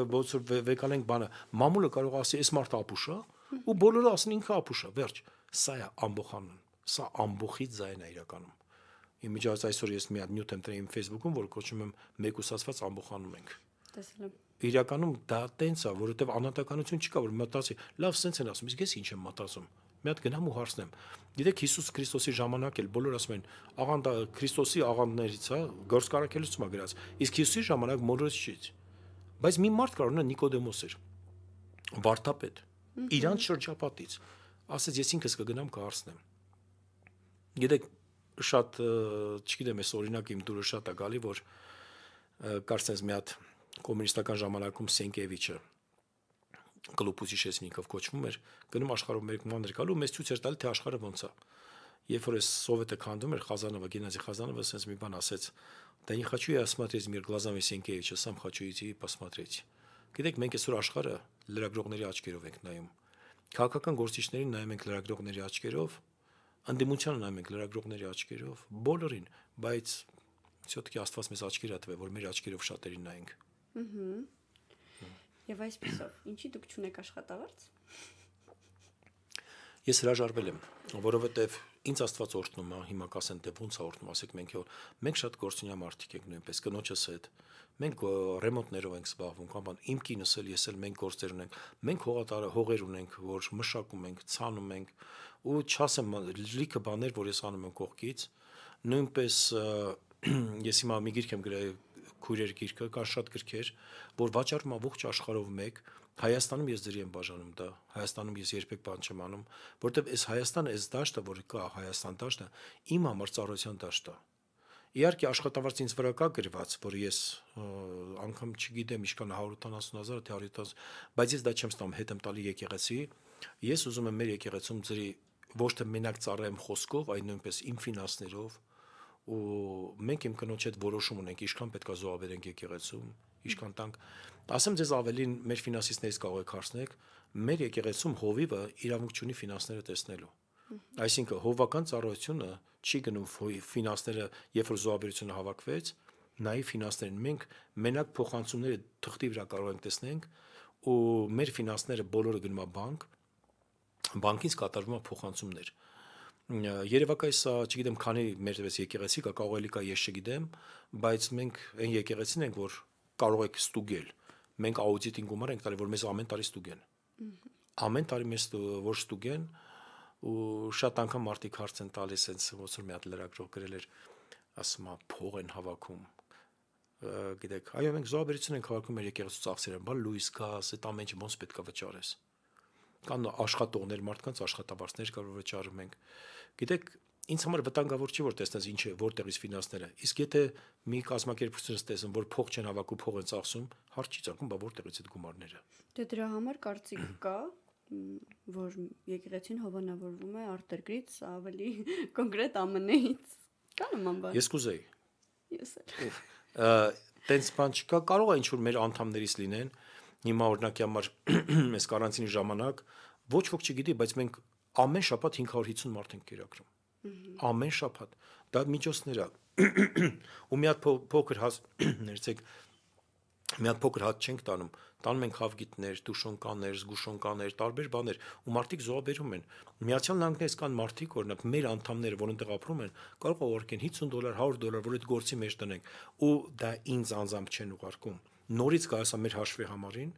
ոնց որ վեկանենք բանը, մամուլը կարող ասի, այս մարդը ապուշ է, ու բոլորը ասեն ինքը ապուշ է, վերջ։ Սա է ամբոխանուն, սա ամբոխից ձայն է իրականում։ Իմիջիայլոց այսօր ես մի հատ նյութ եմ տրել իմ Facebook-ում, որ կոչում եմ մեկուսացված ամբոխանում ենք։ Տեսել եմ։ Իրականում դա տենց է, որովհետև անհատականություն չկա, որ մտածի, լավ, սենց են ասում, իսկ ես ինչ եմ մտածում։ Մի հատ գնամ ու հարցնեմ։ Գիտեք, Հիսուս Քրիստոսի ժամանակ էլ բոլորը ասում են, աղանդը Քրիստոսի աղանդներից է, գործ կարակելուց մա գրած։ Իսկ Հիսուսի ժամանակ մոլորեց չի։ Բայց մի մարդ կար, նա Նիկոդեմոս էր։ վարդապետ իրանց շրջապատից ասեց ես ինքս կգնամ կհարցնեմ։ Գիտեք շատ չգիտեմ ես օրինակ իմ դուրը շատ է գալի որ կարծես մի հատ կոմունիստական ժամանակում Սենկևիչը կլուպուսի շեսնիկով կոչվում էր գնում աշխարհում մեկ մանր գալու մեզ ցույց էր տալի թե աշխարհը ոնց է երբ որ սովետը քանդում էր Խազանովը Գենադի Խազանովը ասես մի бан ասեց да не хочу я смотреть мир глазами Сенкевича сам хочу идти посмотреть գիտեք մենք այսօր աշխարհը լրագրողների աչքերով ենք նայում քաղաքական գործիչներին նայում ենք լրագրողների աչքերով անդիմությանը նայում ենք լրագրողների աչքերով բոլորին բայց все-таки Աստված մեզ աչքեր ատվե որ մեր աչքերով շատերին նայենք Եվ այսպեսով, ինչի դուք չունեք աշխատավարձ։ Ես հրաժարվել եմ, որովհետև ինձ Աստված օրհնում է, հիմա կասեն թե ոնց է օրհնում, ասեք մենք շատ գործունյա մարդիկ ենք նույնպես, կնոջս հետ։ Մենք ռեմոնտներով ենք զբաղվում, կամ բան, իմ կինս էլ ես էլ մենք գործեր ունենք։ Մենք հողեր ունենք, որ մշակում ենք, ցանում ենք, ու չասեմ լիքը բաներ, որ ես անում եմ կողքից, նույնպես ես հիմա մի գիրք եմ գրել քույրեր գիրքը, կան շատ գրքեր, որ վաճառում ամբողջ աշխարհով մեկ Հայաստանում ես ձերի եմ բաժանում դա, Հայաստանում ես երբեք բան չեմ անում, որտեվ այս Հայաստանը, այս դաշտը, որ կա Հայաստան դաշտը, իմ համար ծառայության դաշտ է։ Իհարկե աշխատավարձ ինձ վրա կա գրված, որ ես անգամ չգիտեմ ինչքան 180,000 թե 170, բայց ես դա չեմ ստանում, հետ եմ տալի եկեղեցի։ Ես ուզում եմ մեր եկեղեցում ձերի ոչ թե մենակ ծառայեմ խոսքով, այլ նույնպես իմ ֆինանսներով, ու մենք իմ կնոջ հետ որոշում ունենք, ինչքան պետք է զոհաբերենք եկեղեցում, ինչքան տանք։ Ասեմ ձեզ ավելին մեր ֆինանսիստներից կարող եք հարցնեք, մեր եկեղեցում հովիվը իրավունք չունի ֆինանսները տեսնելու։ Այսինքն հովական ծառայությունը չի գնում ֆինանսները, երբ որ զոհաբերությունը հավաքվեց, նայի ֆինանսներին մենք մենակ փոխանցումները թղթի վրա կարող ենք տեսնենք, ու մեր ֆինանսները բոլորը գնում է բանկ, բանկից կատարվում է փոխանցումներ։ Երևակայս չգիտեմ քանի մեր եկեղեցի կա, կարող էլի կա ես չգիտեմ, բայց մենք այն եկեղեցին ենք, որ կարող եք ստուգել։ Մենք աուդիտին գումար ենք տալի, որ մեզ ամեն տարի ստուգեն։ Ամեն տարի մեզ որ ստուգեն, ու շատ անգամ մարդիկ հարց են տալիս, հենց ոնց որ մի հատ լրագրող գրել էր, ասում է փող են հավաքում։ Գիտեք, այո, մենք զոհաբերություն ենք հավաքում մեր եկեղեցու ծախսերը, բան լույս, գազ, այդ ամեն ինչը ոնց պետք է վճարես։ Կան աշխատողներ, մարդկանց աշխատավարձներ կար որ վճարում ենք։ Գիտեք, ինձ համար վտանգավոր չի որ տեսնես ինչ է, որտեղից ֆինանսները։ Իսկ եթե մի կազմակերպությունից տեսնեմ, որ փող չեն հավաքում, փող են ծախսում, հարց չի ծագում, բա որտեղից այդ գումարները։ Դե դրա համար կարծիք կա, որ եկեղեցին հովանավորվում է արտերկրից, ավելի կոնկրետ ԱՄՆ-ից։ Կա նման բան։ Ես կուզեի։ Ես էլ։ Տենց բան չկա, կարող է ինչ-որ մեր անդամներից լինեն։ Հիմա օրինակի համար այս կարանտինի ժամանակ ոչ ոք չգիտի, բայց մենք ամեն շաբաթ 550 մարդ ենք կերակրում։ Ամեն շաբաթ։ Դա միջոցներ է։ Ու մի հատ փոքր ներեցեք, մի հատ փոքր հատ չենք տանում։ Տանում ենք հավգիտներ, տուշոնկաներ, զգուշոնկաներ, տարբեր բաներ, ու մարդիկ զոհաբերում են։ Միացյալ Նահանգներից կան մարդիկ, օրինակ մեր անդամները, որ այնտեղ ապրում են, կարող է ուղարկեն $50, $100, որ այդ գործի մեջ տնենք, ու դա ինձ անձամբ չեն ուղարկում։ Նորից գալիս է մեր հաշվի համարին,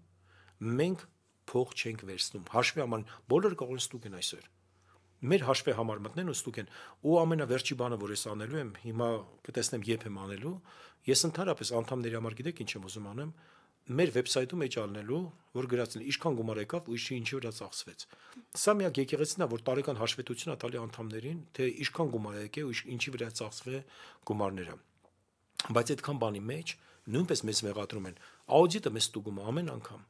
մենք փող չենք վերցնում։ Հաշվի համար բոլորը կարող են ստուգեն այսօր։ Մեր հաշվի համար մտնեն ու ստուգեն։ Ու ամենավերջի բանը, որ ես անելու եմ, հիմա կտեսնեմ երբ եմ անելու, ես ընդհանրապես անդամների համար գիտեք ինչ եմ ուզում անեմ, մեր վեբսայթում էջ ալնելու, որ գրածն է ինչքան գումար եկավ ու ինչի վրա ծախսվեց։ Սա միակ եկեղեցին է, որ տարեկան հաշվետվություն է տալի անդամներին, թե ինչքան գումար եկե ու ինչի վրա ծախսվե գումարները։ Բայց այդքան բանի մեջ նույնպես մեզ մեղադրում են։ Աուդիտը մեզ ստուգում է ամեն անգամ,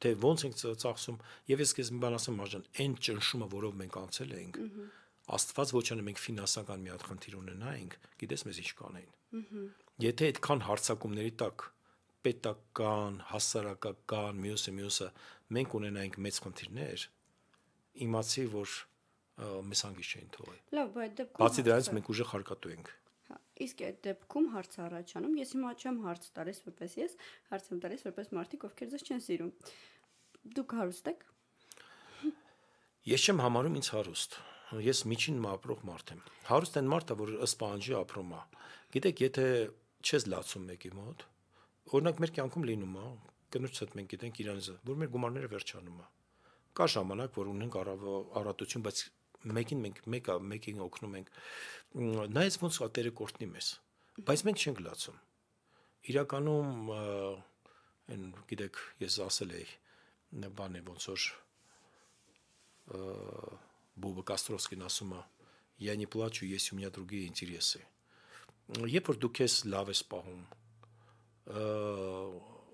թե ոնց ենք ծախսում, եւ ես քեզ մի բան ասեմ, Մարժան, այն ճնշումը, որով մենք անցել ենք, Աստված ոչ անե մենք ֆինանսական մի հատ խնդիր ունենայինք, գիտես մեզ ինչ կանեին։ Եթե այդքան հարցակումների տակ պետական, հասարակական, մյուսը մենք ունենայինք մեծ խնդիրներ, իմացի, որ մեզ հանգիստ չէին թողի։ Լավ, բայց դեպքում բացի դրանից մենք ուժեղ հարկատու ենք։ Իսկ այդ դեպքում հարց առաջանում, ես հիմա չեմ հարց տալիս որպես ես, հարց եմ տալիս որպես մարդիկ, ովքեր ձեզ չեն սիրում։ Դուք հարուստ եք։ Ես չեմ համարում ինձ հարուստ։ Ես միջին ապրող մարդ եմ։ Հարուստ են մարդը, որ ըստ պահանջի ապրում է։ Գիտեք, եթե չես լացում մեկի մոտ, օրինակ մեր կյանքում լինում է, կնոջս հետ մենք գիտենք իրանից, որ մեր գումարները վերջանում է։ Կա ժամանակ, որ ունենք առատություն, բայց մեկին օգնում ենք։ Նայած ոնց է Տերը կորտնի մեզ, բայց մենք չենք լացում։ Իրականում, այն գիտեք, ես ասել էի, բան է ոնց որ Բոբը Կաստրովսկին ասում է «Я не плачу, если у меня другие интересы»։ Երբ որ դու քեզ լավ ես պահում,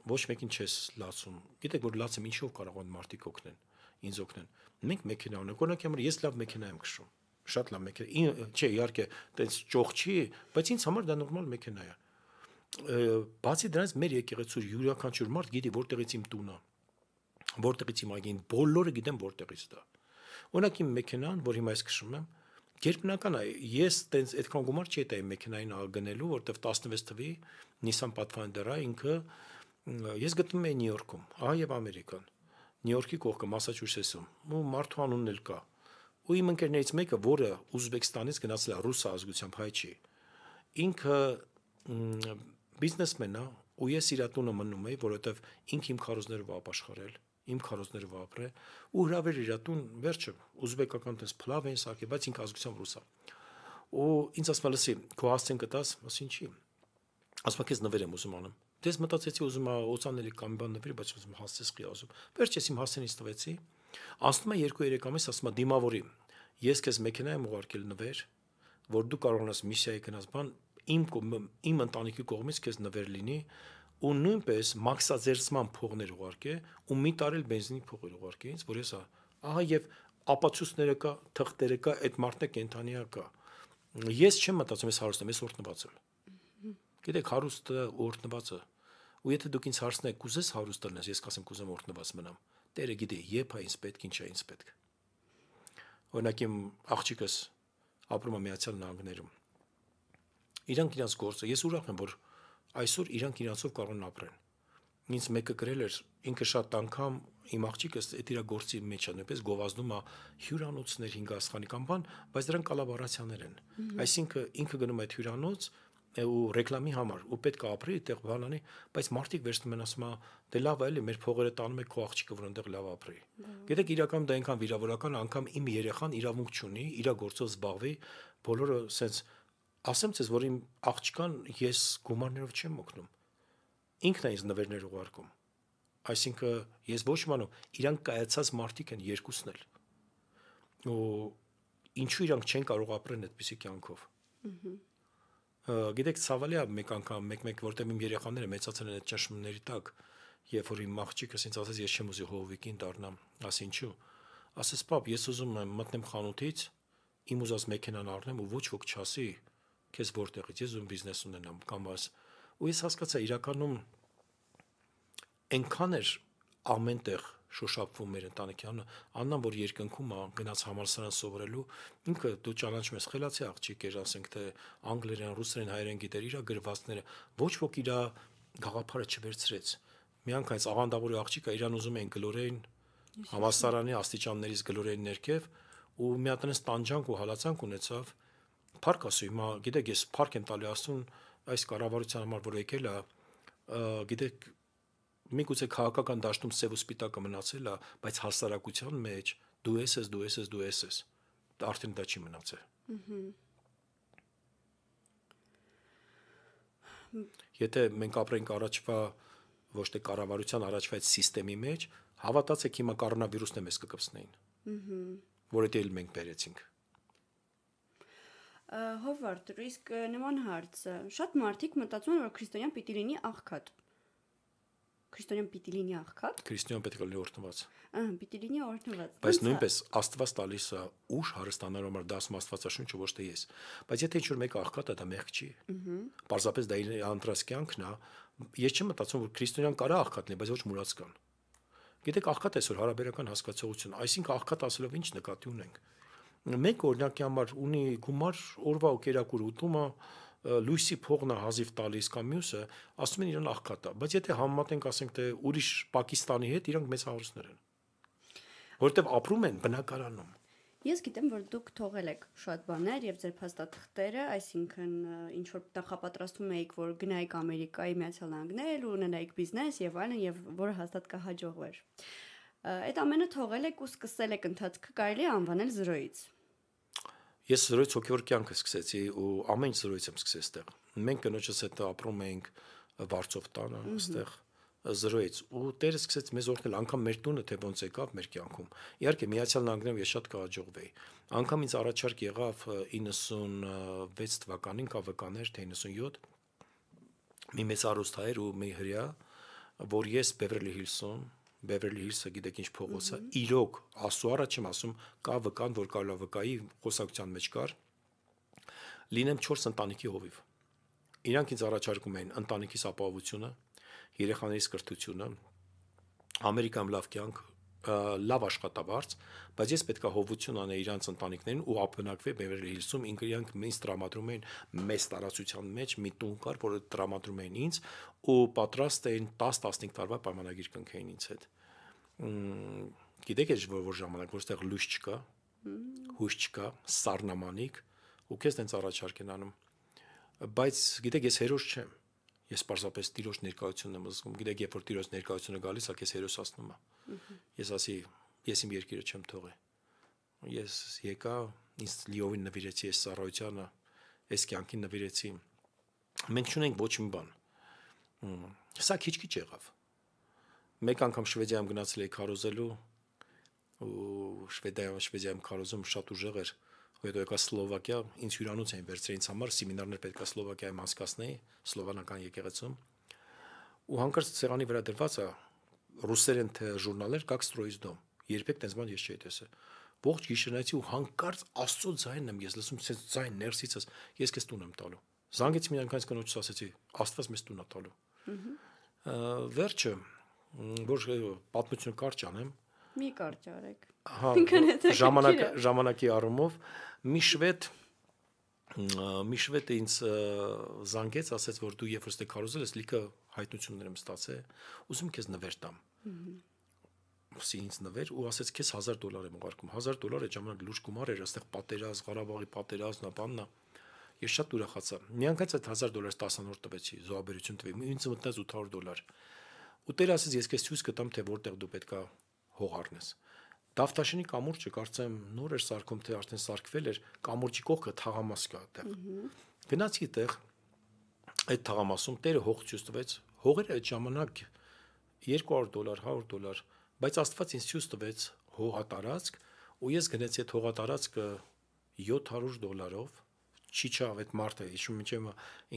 ոչ մեկին չես լացում։ Գիտեք, որ լացեմ ինչով կարող են մարդիկ օգնեն, ինձ օգնեն։ Մենք մեքենա ունենք, օրինակ համար ես լավ մեքենա եմ քշում։ Շատ լավ մեքենա։ Չէ, իհարկե, տենց ճոխ չի, բայց ինձ համար դա նորմալ մեքենա է։ Բացի դրանից մեր եկեղեցու յուրաքանչյուր մարդ գիտի որտեղից իմ տունը, որտեղից իմ այգին, բոլորը գիտեն որտեղից դա։ Օրինակ իմ մեքենան, որ հիմա ես քշում եմ, գերբնական է, ես տենց այդքան գումար չի տա իմ մեքենային գնելու, որտեվ 16 թվի Nissan Pathfinder-ը ինքը ես գտնում եմ Նյու Յորքում, ահա եւ Ամերիկան։ Նյու Յորքի կողքը Մասաչուսեթսում, ու մարդու անունն էլ կա։ Ու իմ ընկերներից մեկը, որը Ուզբեկստանից գնացել է ռուս ազգությամբ, հայ չի, ինքը բիզնեսմեն է, ու ես իր տունը մնում եի, որովհետև ինքը իմ քարոզներով ապաշխարել, իմ քարոզներով ապրել, ու հրավեր իր տուն, վերջը ուզբեկական տես փլավ են սարքել, բայց ինքը ազգությամբ ռուս է։ Ու ինձ ասում է, լսի, քո հասցեն կտաս, ասին չի։ Ասում է, քեզ նվեր եմ ուզում անում։ Դες մտածեցի ուզում եմ օծանելի կամ բան նվերի, բայց ուզում հասցես խի ասում։ Վերջես իմ հասցենից տվեցի։ Ասում է 2-3 ամիս, ասում է դիմավորի։ Ես քեզ մեքենա եմ ուղարկել նվեր, որ դու կարողանաս միսիայի գնաս բան, իմ ընտանիքի կողմից քեզ նվեր լինի, ու նույնպես մաքսաձերծման փողներ ուղարկե, ու մի տարել բենզինի փողեր ուղարկե ինձ, որ ես ահա եւ ապացույցները կա, թղթերը կա, այդ մարդը կենթանիա կա։ Ես չեմ մտածում ես հարուստ եմ, ես օրտնված եմ։ Գիտեք, հարուստը օրտնվածը։ Ու եթե դուք ինձ հարցնեք, կուզես հարուստ լինես, ես կասեմ կուզեմ օրտնված մնամ։ Տերը գիտի, երբ է ինձ պետք, ինչ է ինձ պետք։ Օրինակ իմ աղջիկս ապրում է Միացյալ Նահանգներում։ Իրանք իրաց գործը, ես ուրախ եմ, որ այսօր իրանք իրանցով կարող են ապրեն։ Ինձ մեկը գրել էր, ինքը շատ անգամ իմ աղջիկս այդ իր գործի մեջ է, նույնպես գովազդում է հյուրանոցներ 5 աստղանի կամ բան, բայց դրանք կոլաբորացիաներ են։ Այսինքն ինքը գնում է այդ հյուրանոց ու ռեկլամի համար, ու պետք է ապրի այդտեղ բան անի, բայց մարդիկ վերցնում են ասում դե լավ է, էլի մեր փողերը տանում է քո աղջիկը, որ այնտեղ լավ ապրի։ Գիտեք, իրական դա այնքան վիրավորական, անգամ իմ երեխան իրավունք չունի, իր գործով զբաղվի, բոլորը սենց ասեմ ցեզ, որ իմ աղջկան ես գումարներով չեմ օգնում։ Ինքն է ինձ նվերներ ուղարկում։ Այսինքն ես ոչ մանու, իրանք կայացած մարդիկ են երկուսն էլ։ Ու ինչու իրանք չեն կարող ապրեն այդպիսի կյանքով։ Գիտեք, ցավալի է մեկ անգամ, մեկ որտեղ իմ երեխաները մեծացել են այդ ճնշումների տակ, երբ որ իմ աղջիկս ինձ ասաց, ես չեմ ուզի հովվիկին դառնամ, ասի ինչու։ Ասես, պապ, ես ուզում եմ մտնեմ խանութից, իմ ուզած մեքենան առնեմ ու ոչ ոք չասի, քեզ որտեղից, ես ուզում բիզնես ունենամ կամ աս։ Ու ես հասկացա, իրականում այնքան էր ամենտեղ շոշափվում մեր ընտանիքանը, Աննան, որ երկնքում է գնաց համալսարան սովորելու, ինքը դու ճանաչում ես խելացի աղջիկ էր, ասենք թե անգլերեն, ռուսերեն, հայերեն գիտեր, իր գրվածքները, ոչ ոք իր գաղափարը չվերցրեց։ Միանգամից աղանդավորի աղջիկը իրան ուզում էին գլորեին համալսարանի աստիճաններից գլորեին ներքև, ու մի հատ այնպես տանջանք ու հալածանք ունեցավ։ Փառք ասու, հիմա գիտեք, ես փառք եմ տալի Աստծուն այս կառավարության համար, որ եկել է, գիտեք, միգուցե քաղաքական դաշտում սև ու սպիտակը մնացել է, բայց հասարակության մեջ դու ես, արդեն դա չի մնացել։ Եթե մենք ապրենք առաջվա ոչ թե կառավարության առաջվա այդ համակարգի մեջ, հավատացեք հիմա կորոնավիրուսն է մեզ կկպցնեին, որը դել մենք բերեցինք։ Հովարդ, իսկ նման հարց, շատ մարդիկ մտածում են, որ քրիստոնյան պիտի լինի աղքատ։ Քրիստոնյան պիտի լինի աղքատ։ Քրիստոնյան պետք է լինի օրհնված։ Պիտի լինի օրհնված։ Բայց նույնպես Աստված տալիս է ուժ հարստանալու համար, դա ասում Աստվածաշունչը, ոչ թե ես։ Բայց եթե ինչ-որ մեկը աղքատ է, դա մեղք չի։ Պարզապես դա իր անտրած կյանքն է։ Ես չեմ մտածում, որ քրիստոնյան կարա աղքատ լինի, բայց ոչ մուրացկան։ Գիտեք, աղքատ այսօր հարաբերական հասկացողություն, այսինքն աղքատ ասելով ինչ նկատի ունենք։ Մեկ օրինակի համար ունի գումար օրվա ու կերակուր ուտումը, լույսի փողն է հազիվ տալիս կամ մյուսը, ասում են իրան աղքատ է, բայց եթե համեմատենք, ասենք թե ուրիշ Պակիստանի հետ, իրանք մեծ հարուստներ են, որովհետև ապրում են բնակարանում։ Ես գիտեմ, որ դուք թողել եք շատ բաներ եւ ձեր փաստաթղթերը, այսինքն ինչ որ նախապատրաստում եք, որ գնայիք Ամերիկայի Միացյալ Նահանգներ ու ունենայիք բիզնես եւ այլն, եւ որը հաստատ կհաջողվեր։ Այդ ամենը թողել եք ու սկսել եք ընթացքը կարելի է անվանել զրոյից։ Ես զրոյից հոգևոր կյանքը սկսեցի ու ամեն ինչ զրոյից եմ սկսել այստեղ։ Մենք կնոջս հետ ապրում էինք Վարչով տանը, այստեղ 0-ից ու Տերը սկսեց մեզ օրհնել անգամ մեր տունը թե ոնց եկավ մեր կյանքում։ Իհարկե Միացյալ Նահանգներում ես շատ կհաջողվեի։ Անգամ ինձ առաջարկ եղավ 96 թվականին կավկաներ թե 97 մի մեծ արուստահայր ու մի հրյա, որ ես Beverly Hills-ը գիտեք ինչ փողոց է, իրոք Աստծո առաջ եմ ասում, կա վկան, որ կարելի է վկայի խոսակցության մեջ կար, լինեմ 4 ընտանիքի հովիվ։ Իրանք ինձ առաջարկում էին ընտանիքիս ապահովությունը, երեխաներիս կրթությունը, Ամերիկայում լավ կյանք, լավ աշխատավարձ, բայց ես պետք է հովություն անեի իրանց ընտանիքներին ու ապնակվեի Beverly Hills-ում, իրանք ինձ տրամադրում էին մեծ տարածության մեջ մի տուն կար, որը տրամադրում էին ինձ ու պատրաստ էին 10-15 տարվա պայմանագիր կնքեին ինձ հետ։ Գիտեք էս որ ժամանակ որտեղ լույս չկա, հույս չկա, սառնամանիք ու քեզ տենց առաջարկ են անում։ Բայց գիտեք ես հերոս չեմ։ Ես պարզապես Տիրոջ ներկայությունն եմ զգում։ Գիտեք, երբ որ Տիրոջ ներկայությունը գալիս է, քեզ հերոսացնում է։ Ես ասի, ես իմ երկիրը չեմ թողի։ Ես եկա, ինձ լիովին նվիրեցի այս ծառայությանը, այս կյանքին նվիրեցի։ Մենք չունենք ոչ մի բան։ Սա քիչ-քիչ եղավ։ Մեկ անգամ Շվեդիայում գնացել էի քարոզելու ու Շվեդիայում քարոզում շատ ուժեղ էր։ Հետո եկա Սլովակիա, ինձ հյուրանոց էին վերցրել ինձ համար, սեմինարներ պետք է Սլովակիայում անցկացնեի, սլովանական եկեղեցում։ Ու հանկարծ ցեղանի վրա դրված է ռուսերեն թե ժուրնալներ «Как строить дом»։ Երբեք տես բան ես չէի տեսել։ Ողջ գիշերնայցի ու հանկարծ Աստծո ձայնն եմ ես լսում, ցես ձայն ներսիցս, ես քեզ տուն եմ տալու։ Զանգեցի մի անգամ կնոջս ասեցի, Աստված մեզ տուն է տալու։ Վերջը, որ պատմությունը կարճ անեմ, մի կարճ արեք։ Հա, ժամանակի առումով մի շվեդ ինձ զանգեց, ասեց, որ դու երբ որ ստե քարոզել ես, լիքը հայտնություններ եմ ստացել, ուզում քեզ նվեր տամ։ Ասի ինձ նվեր ու ասեց քեզ $1000 եմ ուղարկում։ $1000 այդ ժամանակ լուրջ գումար էր, այստեղ պատերազմ, Ղարաբաղի պատերազմն, բաննա։ Ես շատ ուրախացա։ Միանգամից այդ $1000 10-րդ տվեցի, զոհաբերություն տվի։ Ինձ մտնեց $800։ Ու Տերը ասեց, ես քեզ ցույց կտամ, թե որտեղ դու պետքա հող առնես։ Դավթաշենի կամուրջը կարծեմ նոր էր սարքում, թե արդեն սարքվել էր, կամուրջի կողքը թաղամաս կա այդտեղ։ Գնացի այդտեղ, այդ թաղամասում Տերը հող ցույց տվեց, հողերը այդ ժամանակ $200, $100, բայց Աստված ինձ ցույց տվեց հողատարածք, ու ես գնացի այդ հողատարածքը $700, չի չավ այդ մարդը, հիշում եմ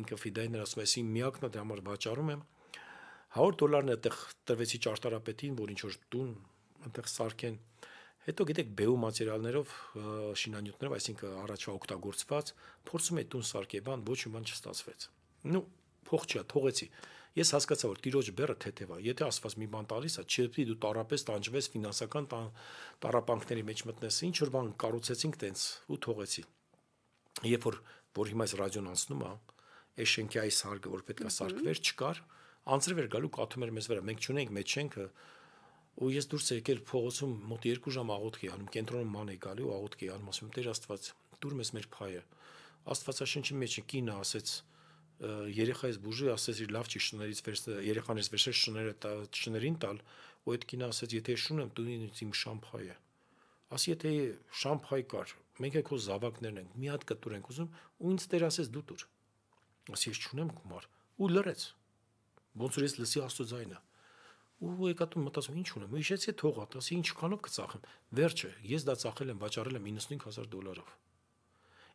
ինքը ֆիդայներ ասում է, ես իմ միակն դրա համար վաճառում եմ, $100-ն այդտեղ տրվեցի ճարտարապետին, որ ինչ որ տուն այնտեղ սարքեն։ Հետո գիտեք բեու մատերիալներով, շինանյութներով, այսինքն առաջվա օգտագործված, փորձում էի տուն սարքել, բան ոչ մի բան չստացվեց։ Նու փող չի, թողեցի։ Ես հասկացա, որ Տիրոջ բեռը թեթև է։ Եթե Աստված մի բան տալիս է, չպետք է դու տարապես տանջվես ֆինանսական տառապանքների մեջ մտնես։ Ինչ որ բան կառուցեցինք տենց ու թողեցի։ Երբ որ հիմա այս ռադիոն անցնում է, այս շենքի այս հարկը, որ պետք է սարքվեր, չկար, անձրև էր գալու կաթում էր մեզ վրա։ Մենք չունենք մեծ շենքը, ու ես դուրս եկել փողոցում մոտ 2 ժամ աղոթք էի անում, կենտրոնում ման էի գալի ու աղոթք էի անում, ասում եմ Տեր Աստված, դուր մեզ մեր փայը։ Աստվածաշնչի մեջ կինը ասեց, երեխայից բուժի, ասեց իր լավ չի շներից երեխաներից վերցրել շներին տալ, ու այդ կինը ասեց, եթե շուն եմ, դու ինձ իմ շամփայը։ Ասի եթե շամփայ կար, մենք էլ քո զավակներն ենք, մի հատ կտուր ենք ուզում, ու ինձ Տեր ասեց դու տուր։ Ասի ես չունեմ գումար, ու լրեց։ Ոնց որ ես լսի Աստծո ձայնը։ Ու եկա տուն մտածում ինչ ունեմ, ու հիշեցի թողա, ասի ինչքանով կծախեմ։ Վերջը ես դա ծախել եմ, վաճառել եմ $95,000։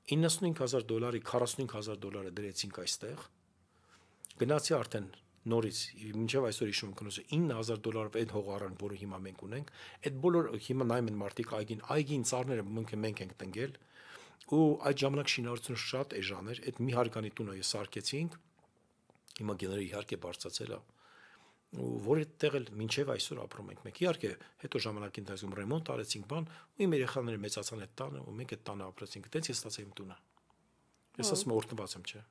$95,000-ի $45,000 դրեցինք այստեղ։ Գնացի արդեն նորից, մինչև այսօր հիշում եմ կնոջը $9,000 այդ հողարան, որը հիմա մենք ունենք, այդ բոլոր հիմա նայում են մարդիկ այգին ծառները մենք ենք տնկել, ու այդ ժամանակ շինարարությունը շատ էժան էր, այդ մի հարկանի տունը ես սարքեցինք, հիմա գեները իհարկե բարձրացել է, ու որ այդտեղ էլ մինչև այսօր ապրում ենք մենք։ Իհարկե, հետո ժամանակի ընթացքում ռեմոնտ արեցինք բան, ու իմ երեխաները մեծացան այդ տանը, ու մենք այդ տանը ապրեցինք։ Այդպես ես ստացա իմ տունը։ Ես ասում եմ օրհնված եմ, չէ։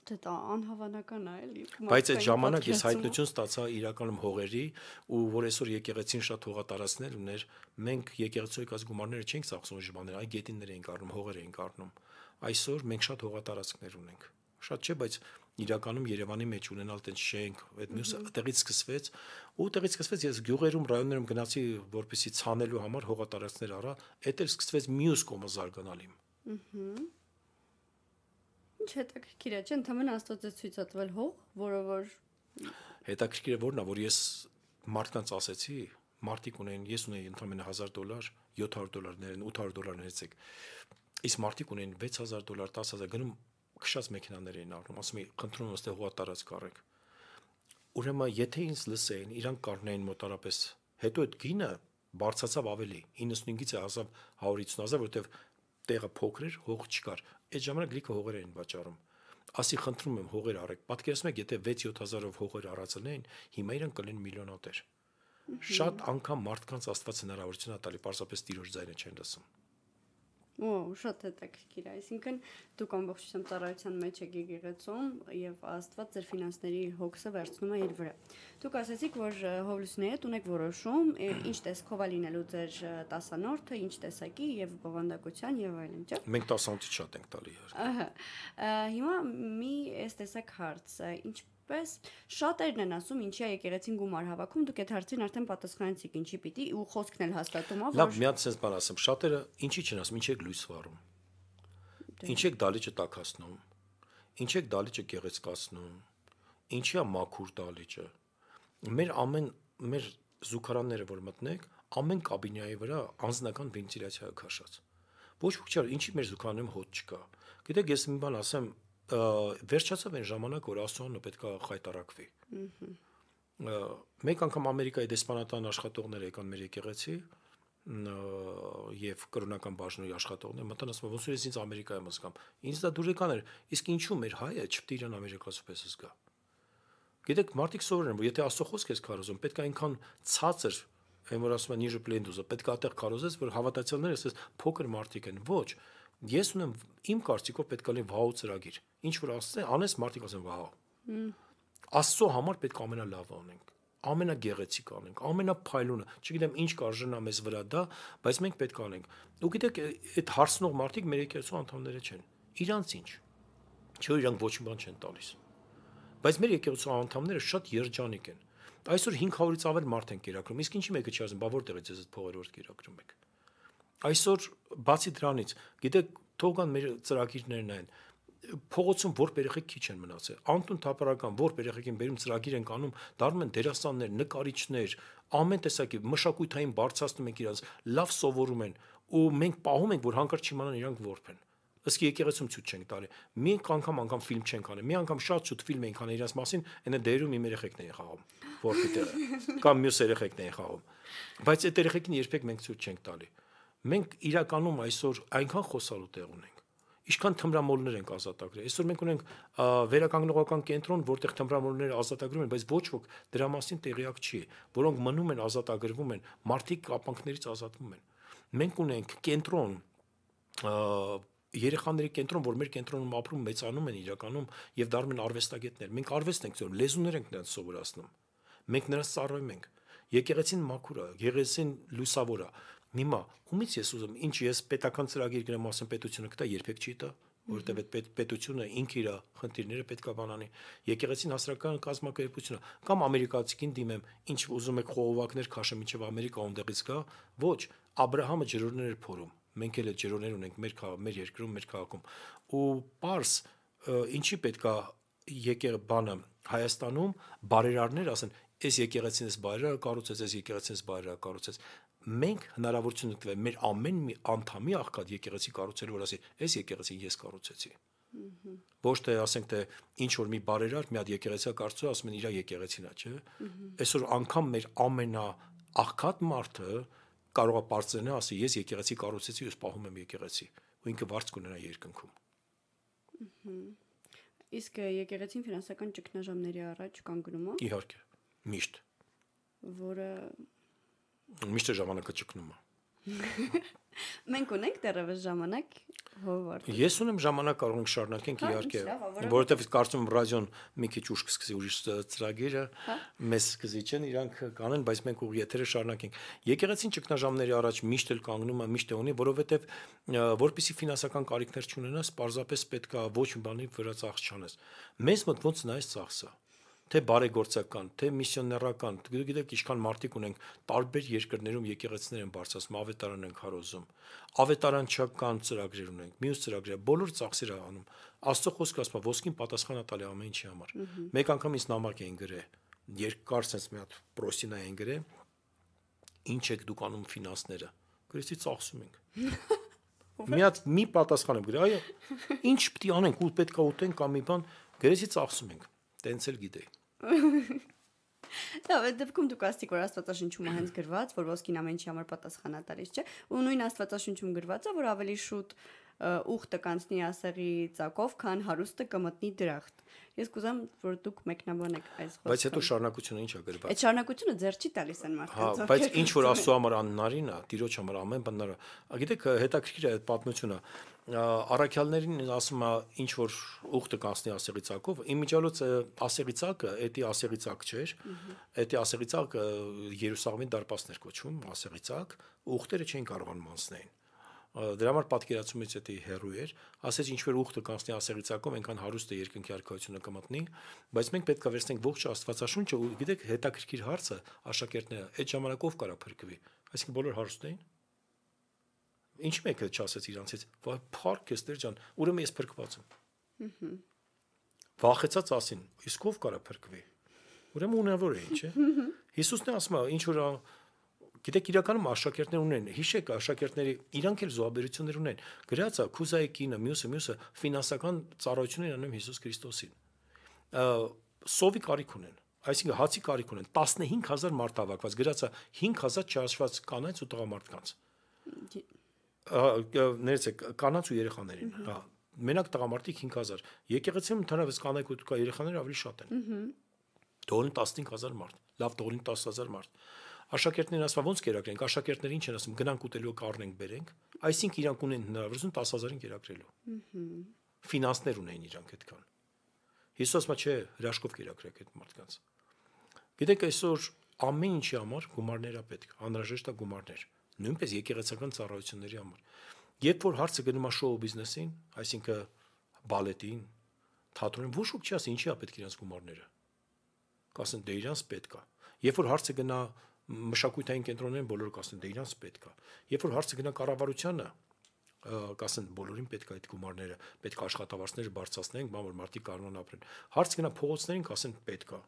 Դա անհավանական է, էլի։ Բայց այդ ժամանակ ես հայտնություն ստացա իրականում հողերի, ու որ այսօր եկեղեցին շատ հողատարածքներ ուներ, մենք եկեղեցու եկած գումարները չենք ծախսում ժողովներ, այ գետիններ էինք առնում, հողեր էինք առնում։ Այսօր մենք շատ հողատարածքներ ունենք։ Շատ չէ, բայց իրականում Երևանի մեջ ունենալ տենց շենք, այդ մյուսը տեղից սկսվեց, ու տեղից սկսվեց ես գյուղերում, ռայոններում գնացի, որպեսի ցանելու համար հողատարածքներ առա, այդ էլ սկսվեց մյուս կողմը զարգանալ իմ։ Ինչ հետաքրքիր է, չէ՞, ընդհանրապես Աստված է ցույց տվել հող, որը որ Հետաքրքիր է որն է, որ ես մարդկանց ասեցի, մարդիկ ունեն, ես ունեի ընդամենը $1000, $700, $800 ներեցեք։ Իսկ մարդիկ ունեն $6000, $10000 գնում քշած մեքենաներ էին առնում, ասում էի, խնդրում եմ, այստեղ հողա տարած կարեք։ Ուրեմն, եթե ինձ լսեին, իրանք կառնեին մոտարապես, հետո այդ գինը բարձրացավ ավելի, 95-ից հասավ 150,000, որովհետև տեղը փոքր էր, հող չկար։ Այդ ժամանակ լիքը հողեր էին վաճառում։ Ասի խնդրում եմ հողեր առեք։ Պատկերացնում եք, եթե 6-7000-ով հողեր առածելեն, հիմա իրանք կլինեն միլիոնատեր։ Շատ անգամ մարդկանց Աստված հնարավորություն է տալի, պարզապես Տիրոջ ձայնը չեն լսում։ Շատ հետաքրքիր է, այսինքն դուք ամբողջությամբ ծառայության մեջ եք եկեղեցում եւ Աստված ձեր ֆինանսների հոգսը վերցնում է իր վրա։ Դուք ասացիք, որ հովլուսների հետ ունեք որոշում, ինչ տեսքով է լինելու ձեր տասանորդը, ինչ տեսակի եւ բովանդակության եւ այլն, չէ՞։ Մենք 10-ից շատ ենք տալի իհարկե։ Ահա։ Հիմա մի այս տեսակ հարց, ինչպես շատերն են ասում, ինչի է եկեղեցին գումար հավաքում, դուք այդ հարցին արդեն պատասխանեցիք, ինչի պիտի ու խոսքն էլ հաստատում է, Լավ, մի հատ sense բան ասեմ, շատերը ինչի չեն ասում, ինչ եք լույս վառում։ Ինչ եք դալիճը տաքացնում։ Ինչ եք դալիճը գեղեցկացնում։ Ինչի է մաքուր դալիճը։ Մեր զուգարանները, որ մտնեք, ամեն կաբինայի վրա անձնական վենտիլյացիա է քաշած։ Ոչ ոք չէ, ինչի մեր զուգարանում հոտ չկա։ Գիտեք, ես մի բան ասեմ, վերջացավ այն ժամանակ, որ Աստծոյանը պետք է խայտարակվի։ Մեկ անգամ Ամերիկայի դեսպանատան աշխատողներ եկան մեր եկեղեցի եւ կրոնական բաժնի աշխատողներ մտան, ասում ոնց որ ես ինձ Ամերիկայում զգամ։ Ինձ դա դուրեկան էր, իսկ ինչու մեր հայը չպետք է իրան ամերիկացու պես զգա։ Գիտեք, մարդիկ սովորեն, որ եթե Աստծո խոսք ես քարոզում, պետք է այնքան ցածր, այն որ ասում են ніже պլենդուզը, պետք է այդտեղ քարոզես, որ հավատացյալները ասես փոքր մարդիկ են։ Ոչ, ես ունեմ իմ կարծիքով պետք է լինի վահու ծրագիր։ Ինչ որ ասես, անես մարդիկ ասեն վահու։ Աստծո համար պետք է ամենալավը անենք, ամենագեղեցիկ անենք, ամենափայլունը, չգիտեմ ինչ կարժենա մեզ վրա դա, բայց մենք պետք է անենք։ Ու գիտեք, այդ հարցնող մարդիկ մեր եկեղեցու անդամները չեն։ Իրանց ինչ։ Չէ՞ իրանք ոչ մի բան չեն տալիս։ Բայց մեր եկեղեցու անդամները շատ երջանիկ են։ Այսօր 500-ից ավել մարդ են կերակրում, իսկ ինչի մեկը չի ասում, բա որտեղից ես այդ փողերը որ կերակրում եք։ Այսօր բացի դրանից, գիտեք, թողան մեր ծրագիրներն են։ Փողոցում որբ երեխեք քիչ են մնացել։ Անտուն թափառական որբ երեխեք են բերում ծրագիր են կանում, դառնում են դերասաններ, նկարիչներ, ամեն տեսակի մշակույթային բարձրացնում են իրancs, լավ սովորում են ու մենք պահում ենք, որ հանկարծ չիմանան իրանք որբ են։ Ըստ եկեղեցում ցույց չենք տալի։ Մի անգամ ֆիլմ չենք անի։ Մի անգամ շատ շուտ ֆիլմ ենք անի իրաց մասին, այնա դերում իմ երեխեքն են խաղում, որպի տեղը կամ մյուս երեխեքն են խաղում։ Բայց այդ երեխեքին երբեք մենք ցույց չենք տալի։ Մենք իրականում այսօր այնքան խոսալու տեղ ունենք։ Ինչքան թմրամոլներ ենք ազատագրել։ Այսօր մենք ունենք վերականգնողական կենտրոն, որտեղ թմրամոլները ազատագրում են, բայց ոչ ոք դրա մասին տեղյակ չի, որոնք մնում են ազատագրվում են, մարդիկ կապանքներից ազատվում են։ Մենք ունենք կենտրոն երեխաների կենտրոն, որ մեր կենտրոնում ապրում, մեծանում են իրականում եւ դառնում են արվեստագետներ։ Մենք արվեստ ենք ծորում, լեզուներ ենք նրանց սովորացնում։ Մենք նրանց ծառայում ենք։ Եկեղեցին մաքուր է, եկեղեցին լուսավոր է։ Հիմա ումից ես ուզում, ինչ ես պետական ծրագիր գրեմ, ասեմ պետությունը կտա, երբեք չի տա, որովհետեւ այդ պետությունը ինքը իր խնդիրները պետքա բանանի։ Եկեղեցին հասարակական կազմակերպությունը կամ ամերիկացիքին դիմեմ, ինչ ուզում եք խողովակներ քաշեմ, ինչեւ Ամերիկա ոնդեղից գա, ոչ, Աբրահամը ջրորներ էր փորում։ Մենք էլ ջրորներ ունենք մեր երկրում, մեր քաղաքում։ Ու պարս ինչի պետքա բանը Հայաստանում բարերարներ ասեն, այս եկեղեցին էս բարերարը կառուցեց, այս եկեղեցին էս բարերարը կառուցեց։ Մենք հնարավորություն ունենք մեր ամեն մի անդամի աղքատ եկեղեցի կառուցելու, որ ասի, այս եկեղեցին ես կառուցեցի։ Ոչ թե ասենք թե ինչ որ մի բարերար մի հատ եկեղեցի կառուցում, ասում են իր եկեղեցին է, չէ՞։ Այսօր անգամ մեր ամենաաղքատ մարդը կարող է բարձրանալ, ասի ես եկեղեցի կառուցեցի, ես պահում եմ եկեղեցի, ու ինքը վարձ կունենա երկնքում։ Իսկ եկեղեցին ֆինանսական ճգնաժամերի առաջ կանգնում է։ Իհարկե, միշտ։ Որը միշտ ժամանակը ճգնում է։ Մենք ունենք դեռևս ժամանակ հովվարդ։ Ես ունեմ ժամանակ, կարող ենք շարունակենք իհարկե, որովհետև կարծում եմ ռադիոն մի քիչ ուշ կսկսի ուրիշ ծրագիրը, մեզ սկսի չեն, իրանք կանեն, բայց մենք ուղղ եթերը շարունակենք։ Եկեղեցին ճգնաժամերի առաջ միշտ էլ կանգնում է, միշտ է ունի, որովհետև որպեսզի ֆինանսական կարիքներ չունենաս, պարզապես պետք է ոչ մի բանի վրա ծախս չանես։ Մեզ մոտ ոնց նայես ծախսը։ թե բարեգործական, թե միսիոներական, գիտեք, ինչքան մարդիկ ունենք տարբեր երկրներում եկեղեցիներ են բարձրացնում, ավետարան են քարոզում, ավետարանչական ծրագրեր ունենք, մյուս ծրագրեր, բոլոր ծախսեր անում։ Աստծո խոսքը ասում է, ոսկին պատասխան է տալի ամեն ինչի համար։ Մեկ անգամ ինձ նամակ էին գրել, երկար sense մի հատ պրոստինա էին գրել, ինչ եք դուք անում ֆինանսները։ Գրեցի ծախսում ենք։ Մի պատասխան եմ գրել, այո, ինչ պիտի անենք, ու պետք է ուտենք կամ մի բան, գրեցի ծախսում ենք։ Տենց էլ գիտեի։ Դա դեպքում դուք ասացիք, որ Աստվածաշնչում է հենց գրված, որ ոսկին ամեն ինչի համար պատասխանատար է, չէ՞։ Ու նույն Աստվածաշնչում գրված է, որ ավելի շուտ ուխտը կանցնի ասեղի ծակով, քան հարուստը կմտնի դրախտ։ Ես կուզեմ, որ դուք մեկնաբանեք այս խոսքը։ Բայց հետո շարունակությունը ի՞նչ է գրված։ Այդ շարունակությունը ձեռ չի տալիս այն մարդկանց։ Հա, բայց ինչ որ Աստծո համար աննարին է, Տիրոջ համար ամեն բան։ Գիտեք, հետաքրքիր է այդ պատմությունը։ Առաքյալներին ասում է ինչ որ ուխտը կանցնի ասեղի ծակով, իմիջիալոց ասեղի ծակը, էդի ասեղի ծակ չէր, էդի ասեղի ծակը Երուսաղեմի դարպասներ կոչվում, ասեղի ծակ, ուխտերը չէին կարողանում անցնել։ Դրա համար պատկերացումից էդի հերույ էր, ասեց ինչ որ ուխտը կանցնի ասեղի ծակով, այնքան հարուստ է երկնքի արքայությունը կմտնի, բայց մենք պետք է վերցնենք ողջ Աստվածաշունչը ու գիտեք հետաքրքիր հարցը աշակերտները այդ ժամանակով կարա փրկվի, այսինքն բոլոր հարուստ էին։ Ինչ մեկը չասեց իրանցից, վայ փառք ես Տեր ջան, ուրեմն ես փրկված եմ։ Վախեցած ասին, իսկ ով կարա փրկվի։ Ուրեմն ունավոր է, չէ՞։ Հիսուսն է ասում, ինչ որ գիտեք իրականում աշակերտներ ունեն, հիշեք աշակերտների իրանք էլ զոհաբերություններ ունեն։ Գրած է Քուզայի կինը, մյուսը ֆինանսական ծառայություններ անում Հիսուս Քրիստոսին։ Սովի կարիք ունեն, այսինքն հացի կարիք ունեն, 15000 մարդ հավաքված, գրած է 5000 չհաշված կանանց ու տղամարդկանց։ Ներեցեք, կանանց ու երեխաներին, հա, մենակ տղամարդիկ 5000, եկեղեցիում ընդհանրապես կանայք ու երեխաները ավելի շատ են։ Դոլին 15000 մարդ, լավ դոլին 10000 մարդ։ Աշակերտներն ասում ոնց կերակրենք, աշակերտները ինչ են ասում, գնանք ուտելու կառնենք բերենք, այսինքն իրանք ունեն հնարավորություն 10000-ին կերակրելու։ Ֆինանսներ ունեն իրանք այդքան։ Հիսուսը չէ, հրաշքով կերակրեք այդ մարդկանց։ Գիտեք, այսօր ամեն ինչի համար գումարներ է պետք, անհրաժեշտ է գումարներ, նույնպես եկեղեցական ծառայությունների համար։ Երբ որ հարցը գնում է շոու բիզնեսին, այսինքն բալետին, թատրոնին, ոչ ոք չի ասի ինչի է պետք իրանց գումարները։ Կասեն դե իրանց պետք է։ Երբ որ հարցը գնա մշակութային կենտրոններին, բոլորը կասեն դե իրանց պետք է։ Երբ որ հարցը գնա կառավարությանը, կասեն բոլորին պետք է այդ գումարները, պետք է աշխատավարձները բարձրացնենք, բան որ մարդիկ կարողան ապրեն։ Հարց գնա փողոցներին, կասեն պետք է։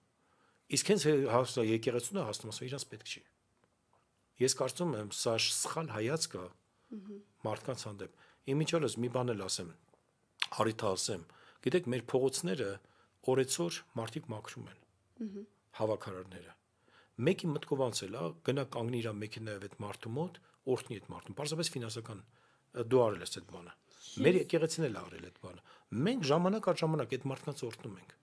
Իսկ հենց հասա եկեղեցուն հասնում ասում իրանց պետք չի։ Ես կարծում եմ սա սխալ հայացք է մարդկանց հանդեպ։ Իմիջիալոց մի բան էլ ասեմ, առիթ ասեմ, գիտեք մեր փողոցները օրեցօր մարդիկ մաքրում են, հավաքարարները։ Մեկի մտքով անցել է, գնա կանգնի իր մեքենայով այդ մարդու մոտ, օրհնի այդ մարդուն։ Պարզապես ֆինանսական դու արել ես այդ բանը։ Մեր եկեղեցին էլ արել այդ բանը։ Մենք ժամանակ առ ժամանակ այդ մարդկանց օրհնում ենք։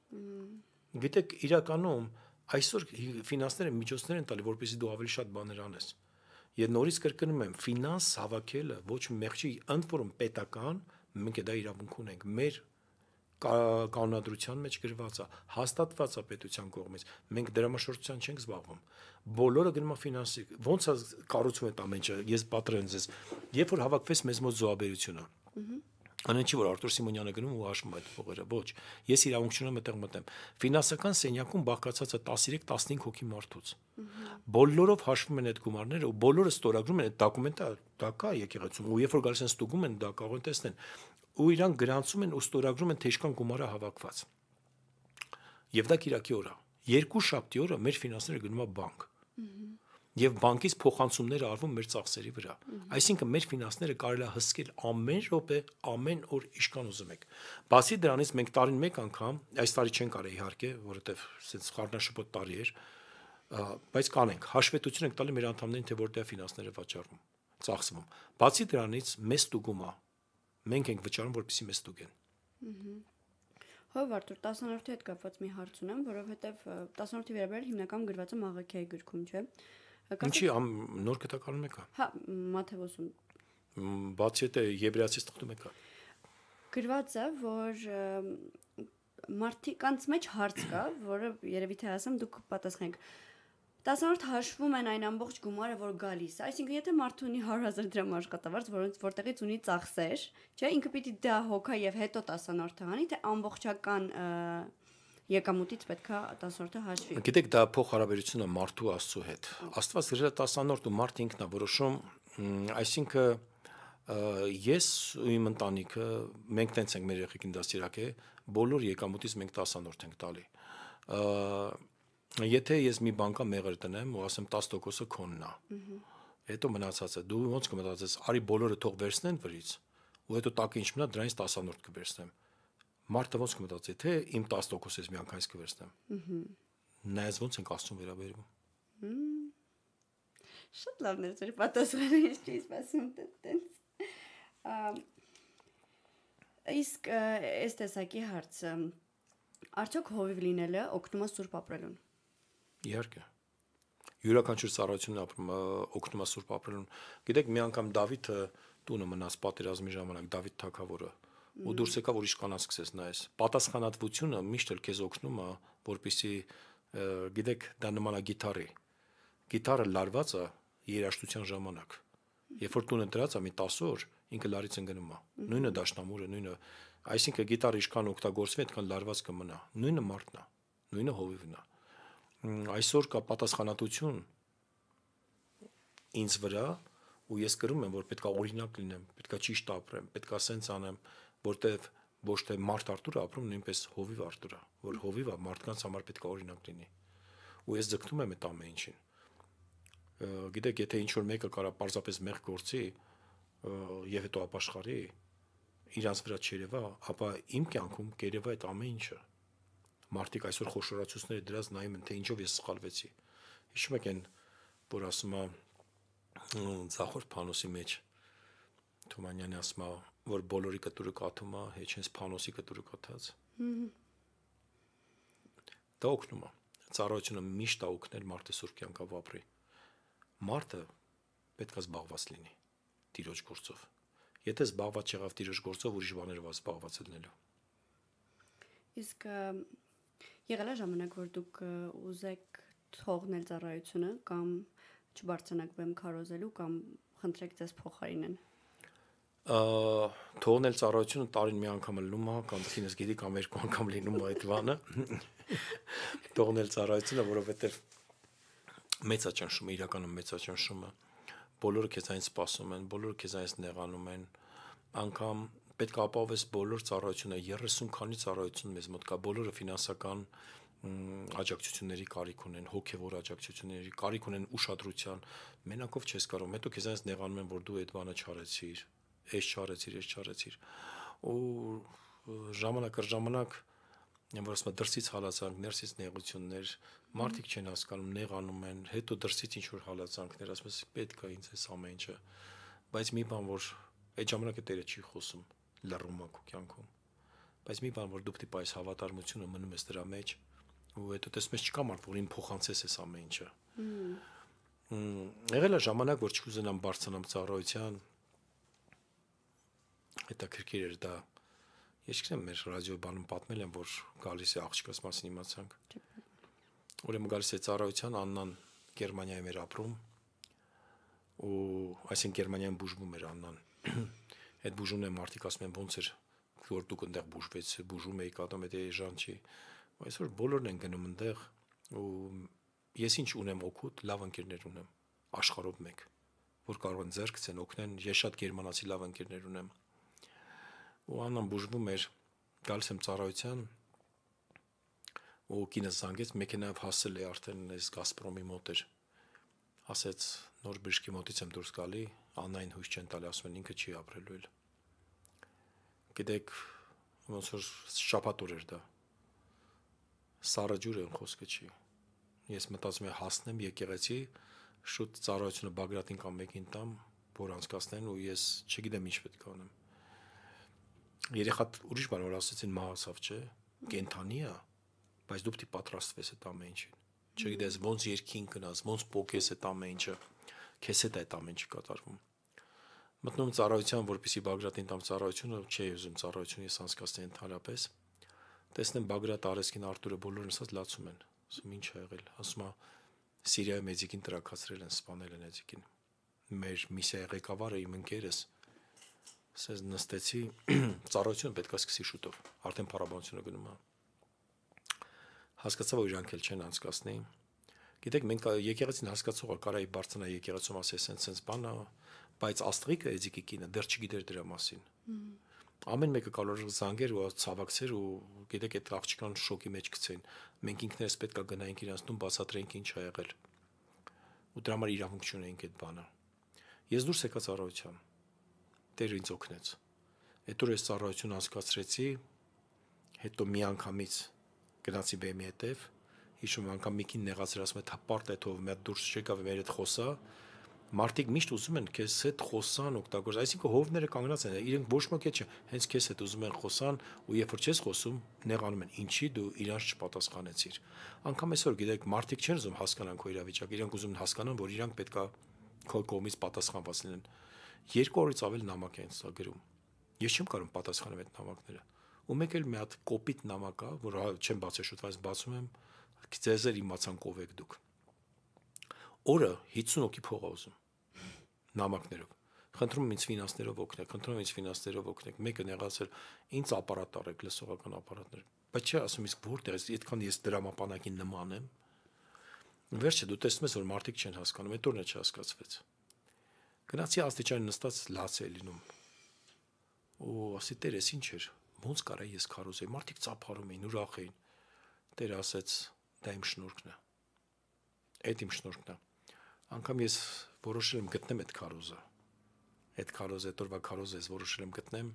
Գիտեք, իրականում այսօր ֆինանսները միջոցներ են տալի, որպեսզի դու ավելի շատ բաներ անես։ Եվ նորից կրկնում եմ, ֆինանս հավաքելը ոչ մեղքի, ընդ որում պետական, մենք դա իրավունք ունենք։ Մեր կանոնադրության մեջ գրված է, հաստատված է պետության կողմից։ Մենք դրամաշրջության չենք զբաղվում։ Բոլորը գնում է ֆինանսի։ Ոնց է կառուցվում այդ ամեն ինչը։ Ես պատրեն ձեզ։ Երբ որ հավաքվեց մեզ մոտ զոհաբերությունը, անեն չի որ Արտուր Սիմոնյանը գնում ու հաշվում այդ փողերը, ոչ։ Ես իրավունք չունեմ այդտեղ մտեմ։ Ֆինանսական սենյակում բաղկացած է 13-15 հոգի մարդուց։ Բոլորով հաշվում են այդ գումարները ու բոլորը ստորագրում են այդ դոկումենտը, դա կա եկեղեցում։ Ու երբ որ գալիս են ստուգում են, դա կարող են տեսնել։ Ու իրանք գրանցում են ու ստորագրում են թե ինչքան գումարը հավաքված։ Եվ դա կիրակի օր է։ Երկու շաբթի օրը մեր ֆինանսները գնում է բանկ։ Եվ բանկից փոխանցումները արվում մեր ծախսերի վրա։ Այսինքն մեր ֆինանսները կարելի է հսկել ամեն րոպե, ամեն օր ինչքան ուզում եք։ Բացի դրանից մենք տարին մեկ անգամ, այս տարի չենք արել իհարկե, որովհետև սենց խառնաշփոթ տարի էր, բայց կանենք, հաշվետվություն ենք տալի մեր անդամներին, թե որտեղ ֆինանսները վաճառվում, ծախսվում։ Բացի դրանից մեզ ստուգում է։ Մենք ենք վճարում, որպեսզի մեզ ստուգեն։ Հով Արտուր, 10-րդի հետ կապված մի հարց ունեմ, որովհետև 10-րդի վերաբերյալ հիմնական գրված է Մաղաքիայի գրքում, չէ՞։ Ինչի նոր կտակարանում եկա։ Հա, Մաթեոսում։ Բացի այդ Եբրայացից թղթում եկա։ Գրված է, որ մարդկանց մեջ հարց կա, որը երևի թե ասեմ դուք պատասխանեք։ 10-րդ հաշվում են այն ամբողջ գումարը, որ գալիս է։ Այսինքն, եթե մարդը ունի 100,000 դրամ աշխատավարձ, որտեղից ունի ծախսեր, չէ, ինքը պիտի դա հոգա եւ հետո 10-րդը հանի, թե ամբողջական եկամուտից պետքա 10-րդը հաշվի։ Գիտեք, դա փոխհարաբերությունը մարդու Աստծո հետ։ Աստված գրել է 10-րդ ու մարդը ինքն է որոշում, այսինքն ես ու իմ ընտանիքը մենք տենց ենք մեր երեխեքին դաստիարակե, բոլոր եկամուտից մենք 10-րդ ենք տալի։ Եթե ես մի բանկա մեղր տնեմ ու ասեմ 10%-ը քոնն է։ Հետո մնացածը դու ոնց կմտածես, արի բոլորը թող վերցնեն վրից, ու հետո տակը ինչ մնա դրանից 10-րդ կվերցնեմ։ Մարդը ոնց կմտածի, թե իմ 10%-ից միանգամից կվերցնեմ։ Նայած ոնց ենք Աստծուն վերաբերվում։ Շատ լավն է ձեր պատասխանը, ես չի սպասում տենց։ Իսկ այս տեսակի հարցը արդյոք հովիվ լինելը օգնում է սուրբ ապրելուն։ Իհարկե։ Յուրաքանչյուր ծառայությունն ապրում օգնում է սուրբ ապրելուն։ Գիտեք, մի անգամ Դավիթը տունը մնաց պատերազմի ժամանակ, Դավիթ թագավորը, ու դուրս եկավ ուրիշ կանանց սկսեց նայես։ Պատասխանատվությունը միշտ էլ քեզ օգնում է, որպեսզի գիտեք, դա նման է գիտարի։ Գիտարը լարված է երաժշտության ժամանակ։ Երբ որ տունը դրած է մի 10 օր, ինքը լարից ընկնում է։ Նույնը դաշնամուրը, նույնը, այսինքն գիտարը ինչքան օգտագործվի, այդքան լարված կմնա։ Նույնը մարդն է, նույնը հովիվն է։ Այսօր կա պատասխանատվություն ինձ վրա, ու ես կրում եմ, որ պետքա օրինակ լինեմ, պետքա ճիշտ ապրեմ, պետքա սենց անեմ, որտեվ ոչ թե մարդ Արտուրը ապրում, նույնպես հովիվ Արտուրը, որ հովիվը մարդկանց համար պետքա օրինակ լինի։ Ու ես ձգտում եմ այդ ամեն ինչին։ Գիտեք, եթե ինչ որ մեկը կարա պարզապես մեղ գործի եւ հետո ապաշխարի, իրանց վրա չերևա, ապա իմ կյանքում կերևա այդ ամեն ինչը։ Մարդիկ այսօր խոշորացուցները դրած նայում են, թե ինչով ես սխալվեցի։ Հիշում եք այն, որ ասում է Ձախորդ Փանոսի մեջ Թումանյանը ասում է, որ բոլորի կտուրը կաթում է, հեչ հենց Փանոսի կտուրը կաթած։ Դա օգնում է։ Ծառայությունը միշտ է օգնել մարդը սուրբ կյանքով ապրի։ Մարդը պետք է զբաղված լինի Տիրոջ գործով։ Եթե զբաղված չեղավ Տիրոջ գործով, ուրիշ բաներով զբաղված լինելու։ Իսկ եղել է ժամանակ, որ դուք ուզեք թողնել ծառայությունը կամ չբարձրանաք բեմ քարոզելու կամ խնդրեք ձեզ փոխարինեն։ Թողնել ծառայությունը տարին մի անգամ լինում է, կամ ինձ գիտի կամ երկու անգամ լինում է այդ բանը։ Թողնել ծառայությունը, որովհետև մեծաճնշումը, իրականում մեծաճնշումը, բոլորը քեզանից սպասում են, բոլորը քեզանից նեղանում են, անգամ պետք է ապահովես բոլոր ծառայությունը, 30 քանի ծառայություն մեզ մոտ կա, բոլորը ֆինանսական աջակցությունների կարիք ունեն, հոգևոր աջակցությունների կարիք ունեն, ուշադրության, մենակով չես կարող, հետո քեզանից նեղանում են, որ դու այդ բանը չարեցիր, այս չարեցիր, ու ժամանակ առ ժամանակ որ ասում եմ դրսից հալածանք, ներսից նեղություններ, մարդիկ չեն հասկանում, նեղանում են, հետո դրսից ինչ որ հալածանքներ, ասում ես պետք է ինձ էս ամեն ինչը, բայց մի բան որ այդ ժամանակը Տերը չի խոսում, լռում է քո կյանքում, բայց մի բան որ դու պետք է այս հավատարմությունը մնում ես դրա մեջ, ու հետո տեսնում ես չկա մարդ, որ ին փոխանցես էս ամեն ինչը։ Եղել է ժամանակ, որ չկուզենամ բարձրանամ ծառայության, հետաքրքիր էր դա։ Ես չգիտեմ, մեր ռադիոբանում պատմել եմ, որ գալիս է աղջկաս մասին իմացանք։ Ուրեմն գալիս է ծառայության, Աննան Գերմանիայում էր ապրում, ու այսինքն Գերմանիայում բուժվում էր Աննան։ Այդ բուժումն է մարդիկ ասում են ոնց էր, որ դուք այնտեղ բուժում եք, ատոմ այդ էժան չի։ Այսօր բոլորն են գնում այնտեղ, ու ես ինչ ունեմ օգուտ, լավ ընկերներ ունեմ, աշխարհով մեկ, որ կարող են ձեռք ցեն օգնեն, ես շատ գերմանացի լավ ընկերներ ունեմ։ Ու Աննան բուժվում էր, գալիս եմ ծառայության, ու կինս զանգեց, մեքենայով հասել է արդեն այս Գազպրոմի մոտ էր, ասեց նոր բժշկի մոտից եմ դուրս գալի, Աննային հույս չեն տալի, ասում են ինքը չի ապրելու էլ։ Գիտեք, ոնց որ շաբաթ օր էր դա, սառը ջուր են խոսքը չի։ Ես մտածում եմ հասնեմ եկեղեցի, շուտ ծառայությունը Բագրատին կամ մեկին տամ, որ անցկացնեն, ու ես չգիտեմ ինչ պետք է անեմ։ Երեխատ ուրիշ բան որ ասեցին մահացավ, չէ, կենթանի է, բայց դու պետք է պատրաստվես այդ ամեն ինչին։ Չգիտես ոնց երկին գնաս, ոնց փոքես այդ ամեն ինչը, քեզ հետ այդ ամեն ինչը կատարվում։ Մտնում ծառայության, որպեսի Բագրատին տամ ծառայությունը, չէի ուզում ծառայությունը ես անցկացնեի ընդհանրապես։ Տեսնեմ Բագրատ Արեսկին Արտուրը բոլորն ասած լացում են։ Ասում ինչ ա եղել, ասում է Սիրիայում Էձիկին տրակացրել են, սպանել են Էձիկին։ Մեր միսիայի ղեկավարը իմ ընկերս ասես նստեցի, ծառայությունը պետք է սկսի շուտով, արդեն փառաբանությունը գնում է։ հասկացա, որ իրանք էլ չեն անցկացնի։ Գիտեք, մենք եկեղեցին հասկացողը կարայի բարձրանա եկեղեցում ասես sense բանը, բայց Աստղիկը Էձիկի կինը դեռ չգիտեր դրա մասին։ Ամեն մեկը կարող էր զանգեր ու ցավակցեր ու գիտեք այդ աղջկան շոկի մեջ գցեն։ Մենք ինքներս պետքա գնայինք իրանց տուն բացատրենք ինչ ա եղել։ Ու դրա համար իրավունք չունեինք այդ բանը։ Ես դուրս եկա ծառայության։ Տերը ինձ օգնեց։ Հետո ես ծառայություն անցկացրեցի, հետո մի անգամից գնացի բեմի հետև, հիշում անգամ մի կին նեղացրել ասում է թապարտ է թող մի հատ դուրս չեկավ մեր հետ խոսա։ Մարդիկ միշտ ուզում են քեզ հետ խոսան օգտագործել, այսինքն հովները կանգնած են, իրենք ոչ ոք չէ, հենց քեզ հետ ուզում են խոսան ու երբ որ չես խոսում, նեղանում են, ինչի դու իրանց չպատասխանեցիր։ Անկամ այսօր գիտեք, մարդիկ չեն ուզում հասկանան քո իրավիճակը, իրենք ուզում են հասկանան, որ իրանք պետքա քո կողմից պատասխանված լինեն։ 2 օրից ավել նամակ են սա գրում։ Ես չեմ կարող պատասխանել այդ նամակները։ Ու մեկ էլ մի հատ կոպիտ նամակ կա, որ չեմ բացել շուտ, բայց բացում եմ, ձեզ էլ իմացան ով եք դուք։ Օրը 50 հոգի փող ա ուզում նամակներով։ Խնդրում եմ ինձ ֆինանսներով օգնեք, խնդրում եմ ինձ ֆինանսներով օգնեք։ Մեկը նեղացել, ինձ ապարատ արեք, լսողական ապարատներ։ Բայց չէ, ասում իսկ որտեղ է, այդքան ես դրամապանակին նման եմ։ Վերջը դու տեսնում ես, որ մարդիկ չեն հասկանում, այդ օրն է չհասկացվեց։ Գնացի աստիճան նստած լաց է լինում։ Ու ասի Տեր, ես ինչ էր։ Ոնց կարա ես քարոզեի։ Մարդիկ ծափարում էին, ուրախ էին։ Տերը ասեց, դա իմ շնորհքն է։ Այդ իմ շնորհքն է։ Անկամ ես որոշել եմ գտնեմ այդ քարոզը։ Այդ քարոզը, այդ օրվա քարոզը ես որոշել եմ գտնեմ։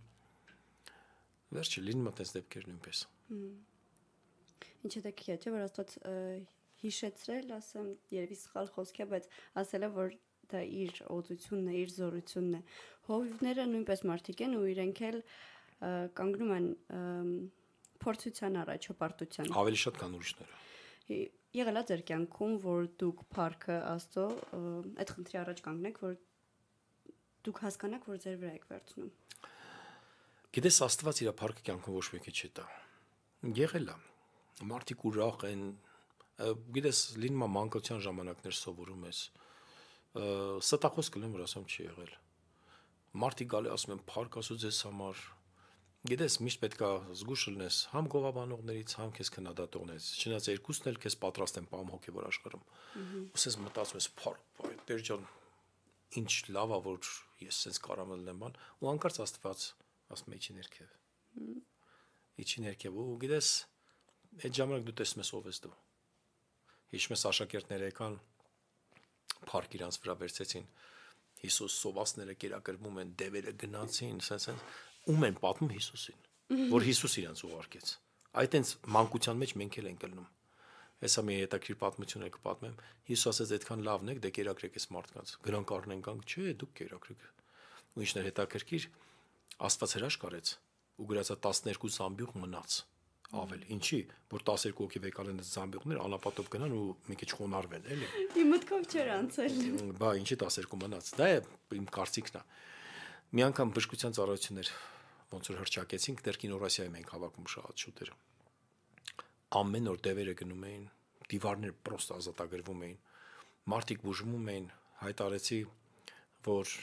Վերջը լինում է այդպես դեպքեր նույնպես։ Ինչ է դեպքի չէ, որ Աստված հիշեցրել, ասեմ, երևի սխալ խոսք է, բայց ասել է, որ դա իր օծությունն է, իր զորությունն է։ Հովիվները նույնպես մարդիկ են ու իրենք էլ կանգնում են փորձության առաջ, հպարտության։ Ավելի շատ կան ուրիշները։ Եղել է ձեր կյանքում, որ դուք փառքը Աստծո այդ խնդրի առաջ կանգնեք, որ դուք հասկանաք, որ ձեր վրա եք վերցնում։ Գիտես, Աստված իր փառքը կյանքում ոչ մեկի չի տա։ Եղել է։ Մարդիկ ուրախ են, գիտես, լինում է մանկության ժամանակներ սովորում ես։ Ստախոս կլեմ, որ ասեմ չի եղել։ Մարդիկ գալի ասում են փառք Աստծո ձեզ համար։ Գիտես, միշտ պետք է զգուշ լինես համ գովաբանողներից, համ քեզ քննադատողներից։ Չնայած երկուսն էլ քեզ պատրաստ են պահում հոգևոր աշխարհում։ Ոսես մտածում ես, փառք, Տեր ջան, ինչ լավ է, որ ես sense կարամ լինեմ բան, ու անկարծ Աստված ասում է իջի ներքև։ Իջի ներքև ու գիտես, այդ ժամանակ դու տեսնում ես ով ես դու։ Հիշում ես աշակերտները եկան, փառք իրանց վրա վերցեցին։ Հիսուս սովածները կերակրվում են, դևերը գնացին, sense ում են պատմում Հիսուսին, որ Հիսուս իրանց ուղարկեց։ Այդ այնց մանկության մեջ մենք էլ ենք ելնում։ Հեսա մի հետաքրիր պատմություն եք պատմեմ։ Հիսուս ասեց այդքան լավն եք, դե կերակրեք այս մարդկանց։ Գրանք առնեն կանք, չէ, դուք կերակրեք։ Ու ինչն է հետաքրքիր, Աստված հրաշք արեց ու գրածա 12 զամբյուղ մնաց ավել։ Ինչի, որ 12 հոգի վեկալեն այս զամբյուղներ անապատով գնան ու մի քիչ խոնարհվեն, էլի։ Իմ մտքով չէր անցել։ Բա ինչի 12 մնաց։ Դա է իմ կարծիքն է։ Մի անգամ բժշկության ծառայություններ ոնց որ հրճակեցինք, դեռ կինորասիայում ենք հավաքում շատ շուտեր։ Ամեն օր դևերը գնում էին, դիվարներ պրոստը ազատագրվում էին, մարդիկ բուժվում էին, հայտարեցի, որ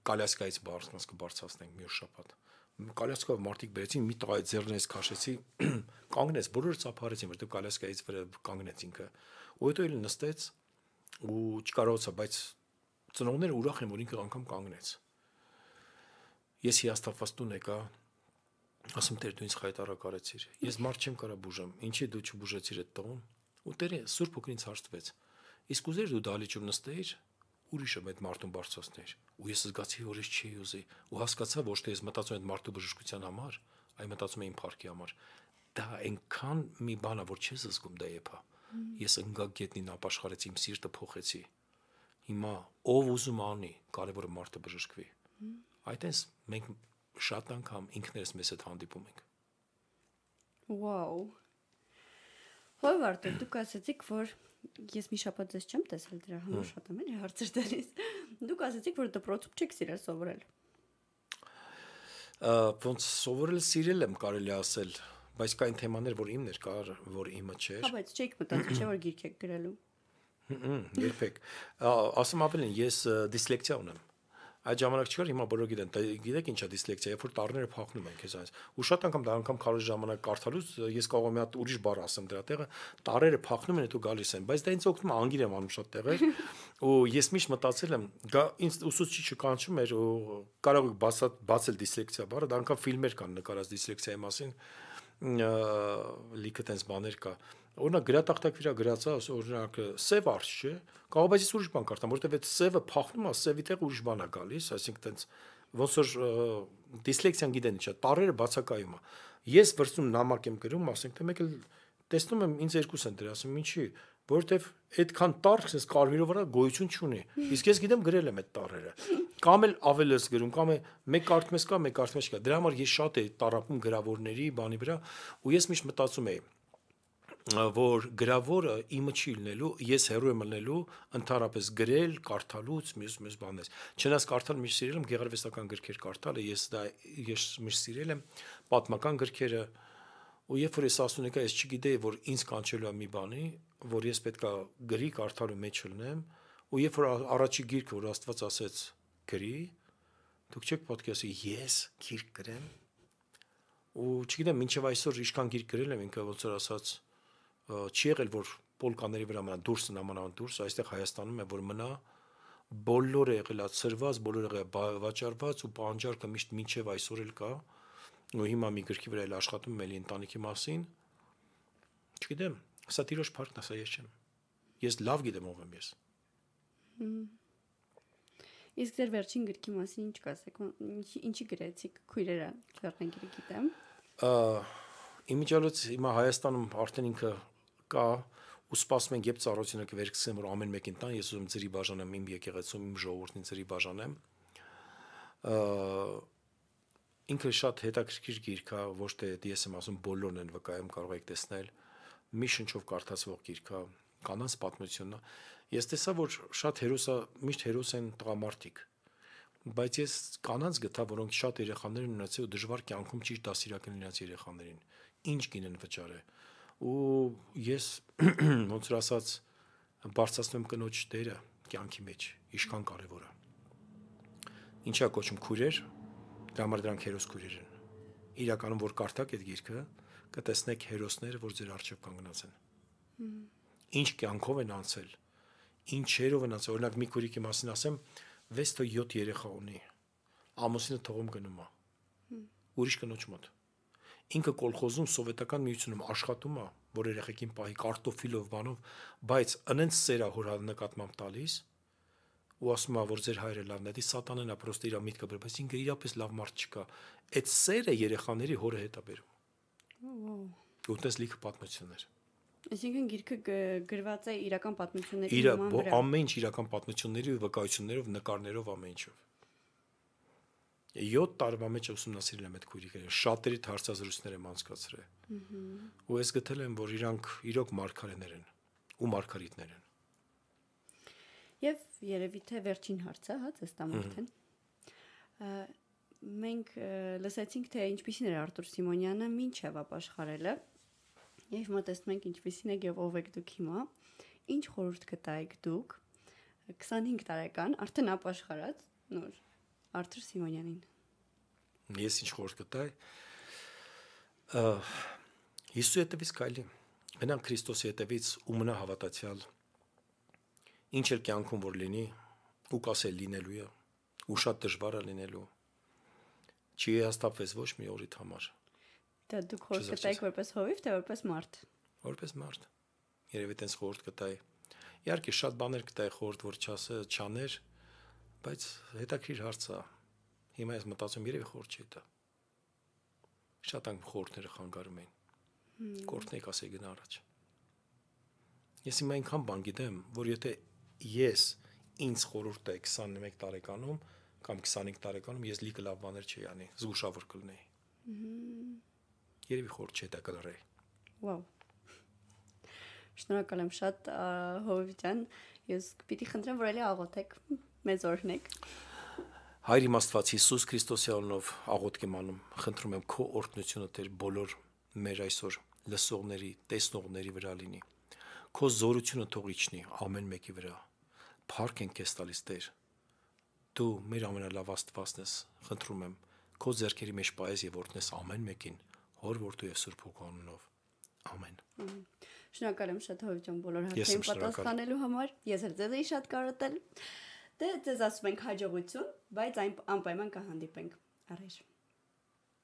կալյասկայից բարձրացնենք կբարձրացնենք մի օր շաբաթ։ Կալյասկայով մարդիկ բերեցին, մի տղայի ձեռներից քաշեցի, կանգնեց, բոլորը ծափարեցին, որտեղ կալյասկայից վրա կանգնեց ինքը։ Ու հետո էլ նստեց ու չկարողացա, բայց ծնողները ուրախ են, որ ինքը անգամ կանգնեց։ Ես հիասթափված տուն եկա, ասում Տեր դու ինձ խայտարակ արեցիր։ Ես մարդ չեմ կարա բուժեմ, ինչի դու չբուժեցիր այդ տղուն։ Ու Տերը Սուրբ Հոգին ինձ հարցրեց։ Իսկ ուզեր դու դալիճում նստեիր, ուրիշը այդ մարդուն բարձրացներ։ Ու ես զգացի, որ ես չի ուզի, ու հասկացա, ոչ թե ես մտածում եմ այդ մարդու բժշկության համար, այլ մտածում եմ իմ փառքի համար։ Դա այնքան մի բան է, որ չես զգում դա եփա։ Ես ընկա գետնին ապաշխարեցի, իմ սիրտը փոխեցի։ Հիմա ով ուզում անի, կարևորը մարդը բժշկվի։ Այդտենց մենք շատ անգամ ինքներս մեզ հետ հանդիպում ենք։ Վաու։ Հով Արտուր, դուք ասացիք, որ ես մի շաբաթ ձեզ չեմ տեսել, դրա համար շատ եմ էլի հարցեր տալիս։ Դուք ասացիք, որ դպրոցում չեք սիրել սովորել։ Ոնց սովորել սիրել եմ կարելի ասել, բայց կային թեմաներ, որ իմն էր, կար, որ իմը չէր։ Հա, բայց չեք մտածել, չէ՞ որ գիրք եք գրելու։ Երբեք։ Ասում ավելին, ես դիսլեկցիա ունեմ։ Այդ ժամանակ չկար, հիմա բոլորը գիտեն, գիտեք ինչա դիսլեքսիա, երբ որ տառները փոխնում են քեզ այս։ Ու շատ անգամ դա անգամ քարոզ ժամանակ կարդալուց ես կարող եմ մի հատ ուրիշ բառ ասեմ դրա տեղը, տառերը փոխնում են, հետո գալիս են, բայց դա ինձ օգնում է, անգիր եմ անում շատ տեղեր։ Ու ես միշտ մտածել եմ, ինձ ուսուցիչը կանչում էր ու կարող եք բացել դիսլեքսիա բառը, դա անգամ ֆիլմեր կան նկարած դիսլեքսիայի մասին, լիքը տենց բաներ կա։ Օրինակ գրատախտակ վրա գրածա, օրինակ սև արջ չէ, կարող բայց ես ուրիշ բան կարդամ, որովհետև այդ սևը փախնում է, սևի տեղ ուրիշ բան է գալիս, այսինքն տենց ոնց որ դիսլեքսիան գիտեն ինչա, տառերը բացակայում է։ Ես վրցնում նամակ եմ գրում, ասենք թե մեկ էլ տեսնում եմ ինձ երկուս են դրա, ասում ինչի, որովհետև այդքան տառ քսես կարմիրով վրա գոյություն չունի։ Իսկ ես գիտեմ գրել եմ այդ տառերը։ Կամ էլ ավել ես գրում, կամ է մեկ կարդում ես կա, մեկ կարդում ես կա։ Դրա համար ես շատ էի տառապում գրավորների բանի վրա, ու ես միշտ մտածում էի որ գրավորը իմը չի լինելու, ես հերո եմ լինելու ընդհանրապես գրել, կարդալուց, մյուս բաներ։ Չնայած կարդալ միշտ սիրել եմ գեղարվեստական գրքեր կարդալը, ես միշտ սիրել եմ պատմական գրքերը, ու երբ որ ես ասում եկա, ես չգիտեի, որ ինձ կանչելու է մի բանի, որ ես պետքա գրի կարդալու մեջ լինեմ, ու երբ որ առաջի գիրքը, որ Աստված ասեց գրի, դուք չեք պետք է ասի ես գիրք գրեմ, ու չգիտեմ, մինչև այսօր ինչքան գիրք գրել եմ, ինքը ոնց որ ասած չի եղել, որ պոլկաների վրա մնա դուրս նամանավան դուրս, այստեղ Հայաստանում է, որ մնա, բոլորը եղել է ծրված, բոլորը եղել վաճառված ու պահանջարկը միշտ մինչև այսօր էլ կա, ու հիմա մի գրքի վրա էլ աշխատում եմ էլի ընտանիքի մասին, չգիտեմ, սա տիրոջ փառքն է, սա ես չեմ, ես լավ գիտեմ ով եմ ես։ Իսկ ձեր վերջին գրքի մասին ինչ կասեք, ինչի գրեցիք, քույրերը Լեռնագիրը գիտեմ։ Իմիջիալոց հիմա Հայաստանում արդեն ինքը կա ու սպասում ենք երբ ծառայությունը կվերցնեմ որ ամեն մեկին տան ես ուզում ծրի բաժանեմ իմ եկեղեցում իմ ժողովրդին ծրի բաժանեմ ինքը շատ հետաքրքիր գիրք է ոչ թե ես եմ ասում բոլորն են վկայում կարող եք տեսնել մի շնչով կարդացվող գիրք է կանանց պատմությունն է ես տեսա որ շատ հերոսա միշտ հերոս են տղամարդիկ բայց ես կանանց գտա որոնք շատ երեխաներ ունեցել ու դժվար կյանքում ճիշտ դասիրակեն իրենց երեխաներին ինչ գինեն վճարե ու ես ոնց որ ասած բարձրացնում կնոջ դերը կյանքի մեջ ինչքան կարևոր է ինչա կոչում քույրեր դրա համար դրանք հերոս քույրեր են իրականում որ կարդաք այդ գիրքը կտեսնեք հերոսները որ ձեր առջև կանգնած են ինչ կյանքով են անցել ինչերով են անցել օրինակ մի քույրիկի մասին ասեմ 6 թե 7 երեխա ունի ամուսինը թողում գնում է ուրիշ կնոջ մոտ ինքը կոլխոզում սովետական միությունում աշխատում է որ երեխեքին պահի կարտոֆիլով բանով բայց անենց սերա հոր նկատմամբ տալիս ու ասում է որ ձեր հայրը լավն է դի սատանան է պրոստը իր միտքը բեր բայց ինքը իրապես լավ մարդ չկա այդ սերը երեխաների հորը հետ է բերում ու տես լիքը պատմություններ Այսինքն գիրքը գրված է իրական պատմությունների նման ամեն ինչ իրական պատմությունների ու վկայություններով նկարներով ամեն ինչով 7 տարվա մեջ ուսումնասիրել եմ այդ քույրիկները, շատերի հարցազրույցներ եմ անցկացրել։ Ու ես գտել եմ, որ իրանք իրոք մարգարեներ են ու մարգարիտներ են։ Եվ երևի թե վերջին հարցը, հա, ձեզ տամ արդեն։ Մենք լսեցինք, թե ինչպիսին էր Արտուր Սիմոնյանը մինչև ապաշխարելը։ Եվ մտածում ենք ինչպիսին է եւ ով եք դուք հիմա։ Ինչ խորհուրդ կտայիք դուք 25 տարեկան արդեն ապաշխարած նոր Արտուր Սիմոնյանին։ Ես ինչ խորհուրդ կտայի։ Հիսուսի հետևից քայլի։ Գնանք Քրիստոսի հետևից ու մնա հավատացյալ։ Ինչ էլ կյանքում որ լինի, ու կասել լինելու է, ու շատ դժվար է լինելու։ Չի հաստատվես ոչ մի օրիդ համար։ Դա դուք խորհուրդ կտայիք որպես հովիվ, թե որպես մարդ։ Որպես մարդ։ Երևի տենց խորհուրդ կտայի։ Իհարկե շատ բաներ կտայի խորհուրդ որ չաներ, բայց հետաքրիր հարց է։ Հիմա ես մտածում երևի խորհուրդ չի տա։ Շատ անգամ խորհուրդները խանգարում են։ Կորտնեկ ասեի գնա առաջ։ Ես հիմա այնքան բան գիտեմ, որ եթե ես ինձ խորհուրդ տայի 21 տարեկանում կամ 25 տարեկանում ես լիքը լավ բաներ չի անի, զգուշավոր կլինեի։ Երևի խորհուրդ չի տա կլրեի։ Վաու։ Շնորհակալ եմ շատ Հովիվ ջան, ես պիտի խնդրեմ, որ էլի աղոթեք, մեզ օրհնեք։ Հայր իմ Աստված Հիսուս Քրիստոսի անունով աղոթք եմ անում, խնդրում եմ քո օրհնությունը Տեր բոլոր մեր այսօր լսողների, տեսնողների վրա լինի։ Քո զորությունը թող իջնի ամեն մեկի վրա։ Փառք ենք քեզ տալիս Տեր։ դու մեր ամենալավ Աստվածն ես, խնդրում եմ, քո ձեռքերի մեջ պահես եւ օրհնես ամեն մեկին, Հոր Որդու եւ Սուրբ Հոգու անունով։ Ամեն։ Շնորհակալ եմ շատ Հովիվ բոլոր հարցերին պատասխանելու համար։ Ես էլ ձեզ էի շատ կարոտել։ Դե ձեզ ասում ենք հաջողություն, բայց անպայման կհանդիպենք։ Առայժմ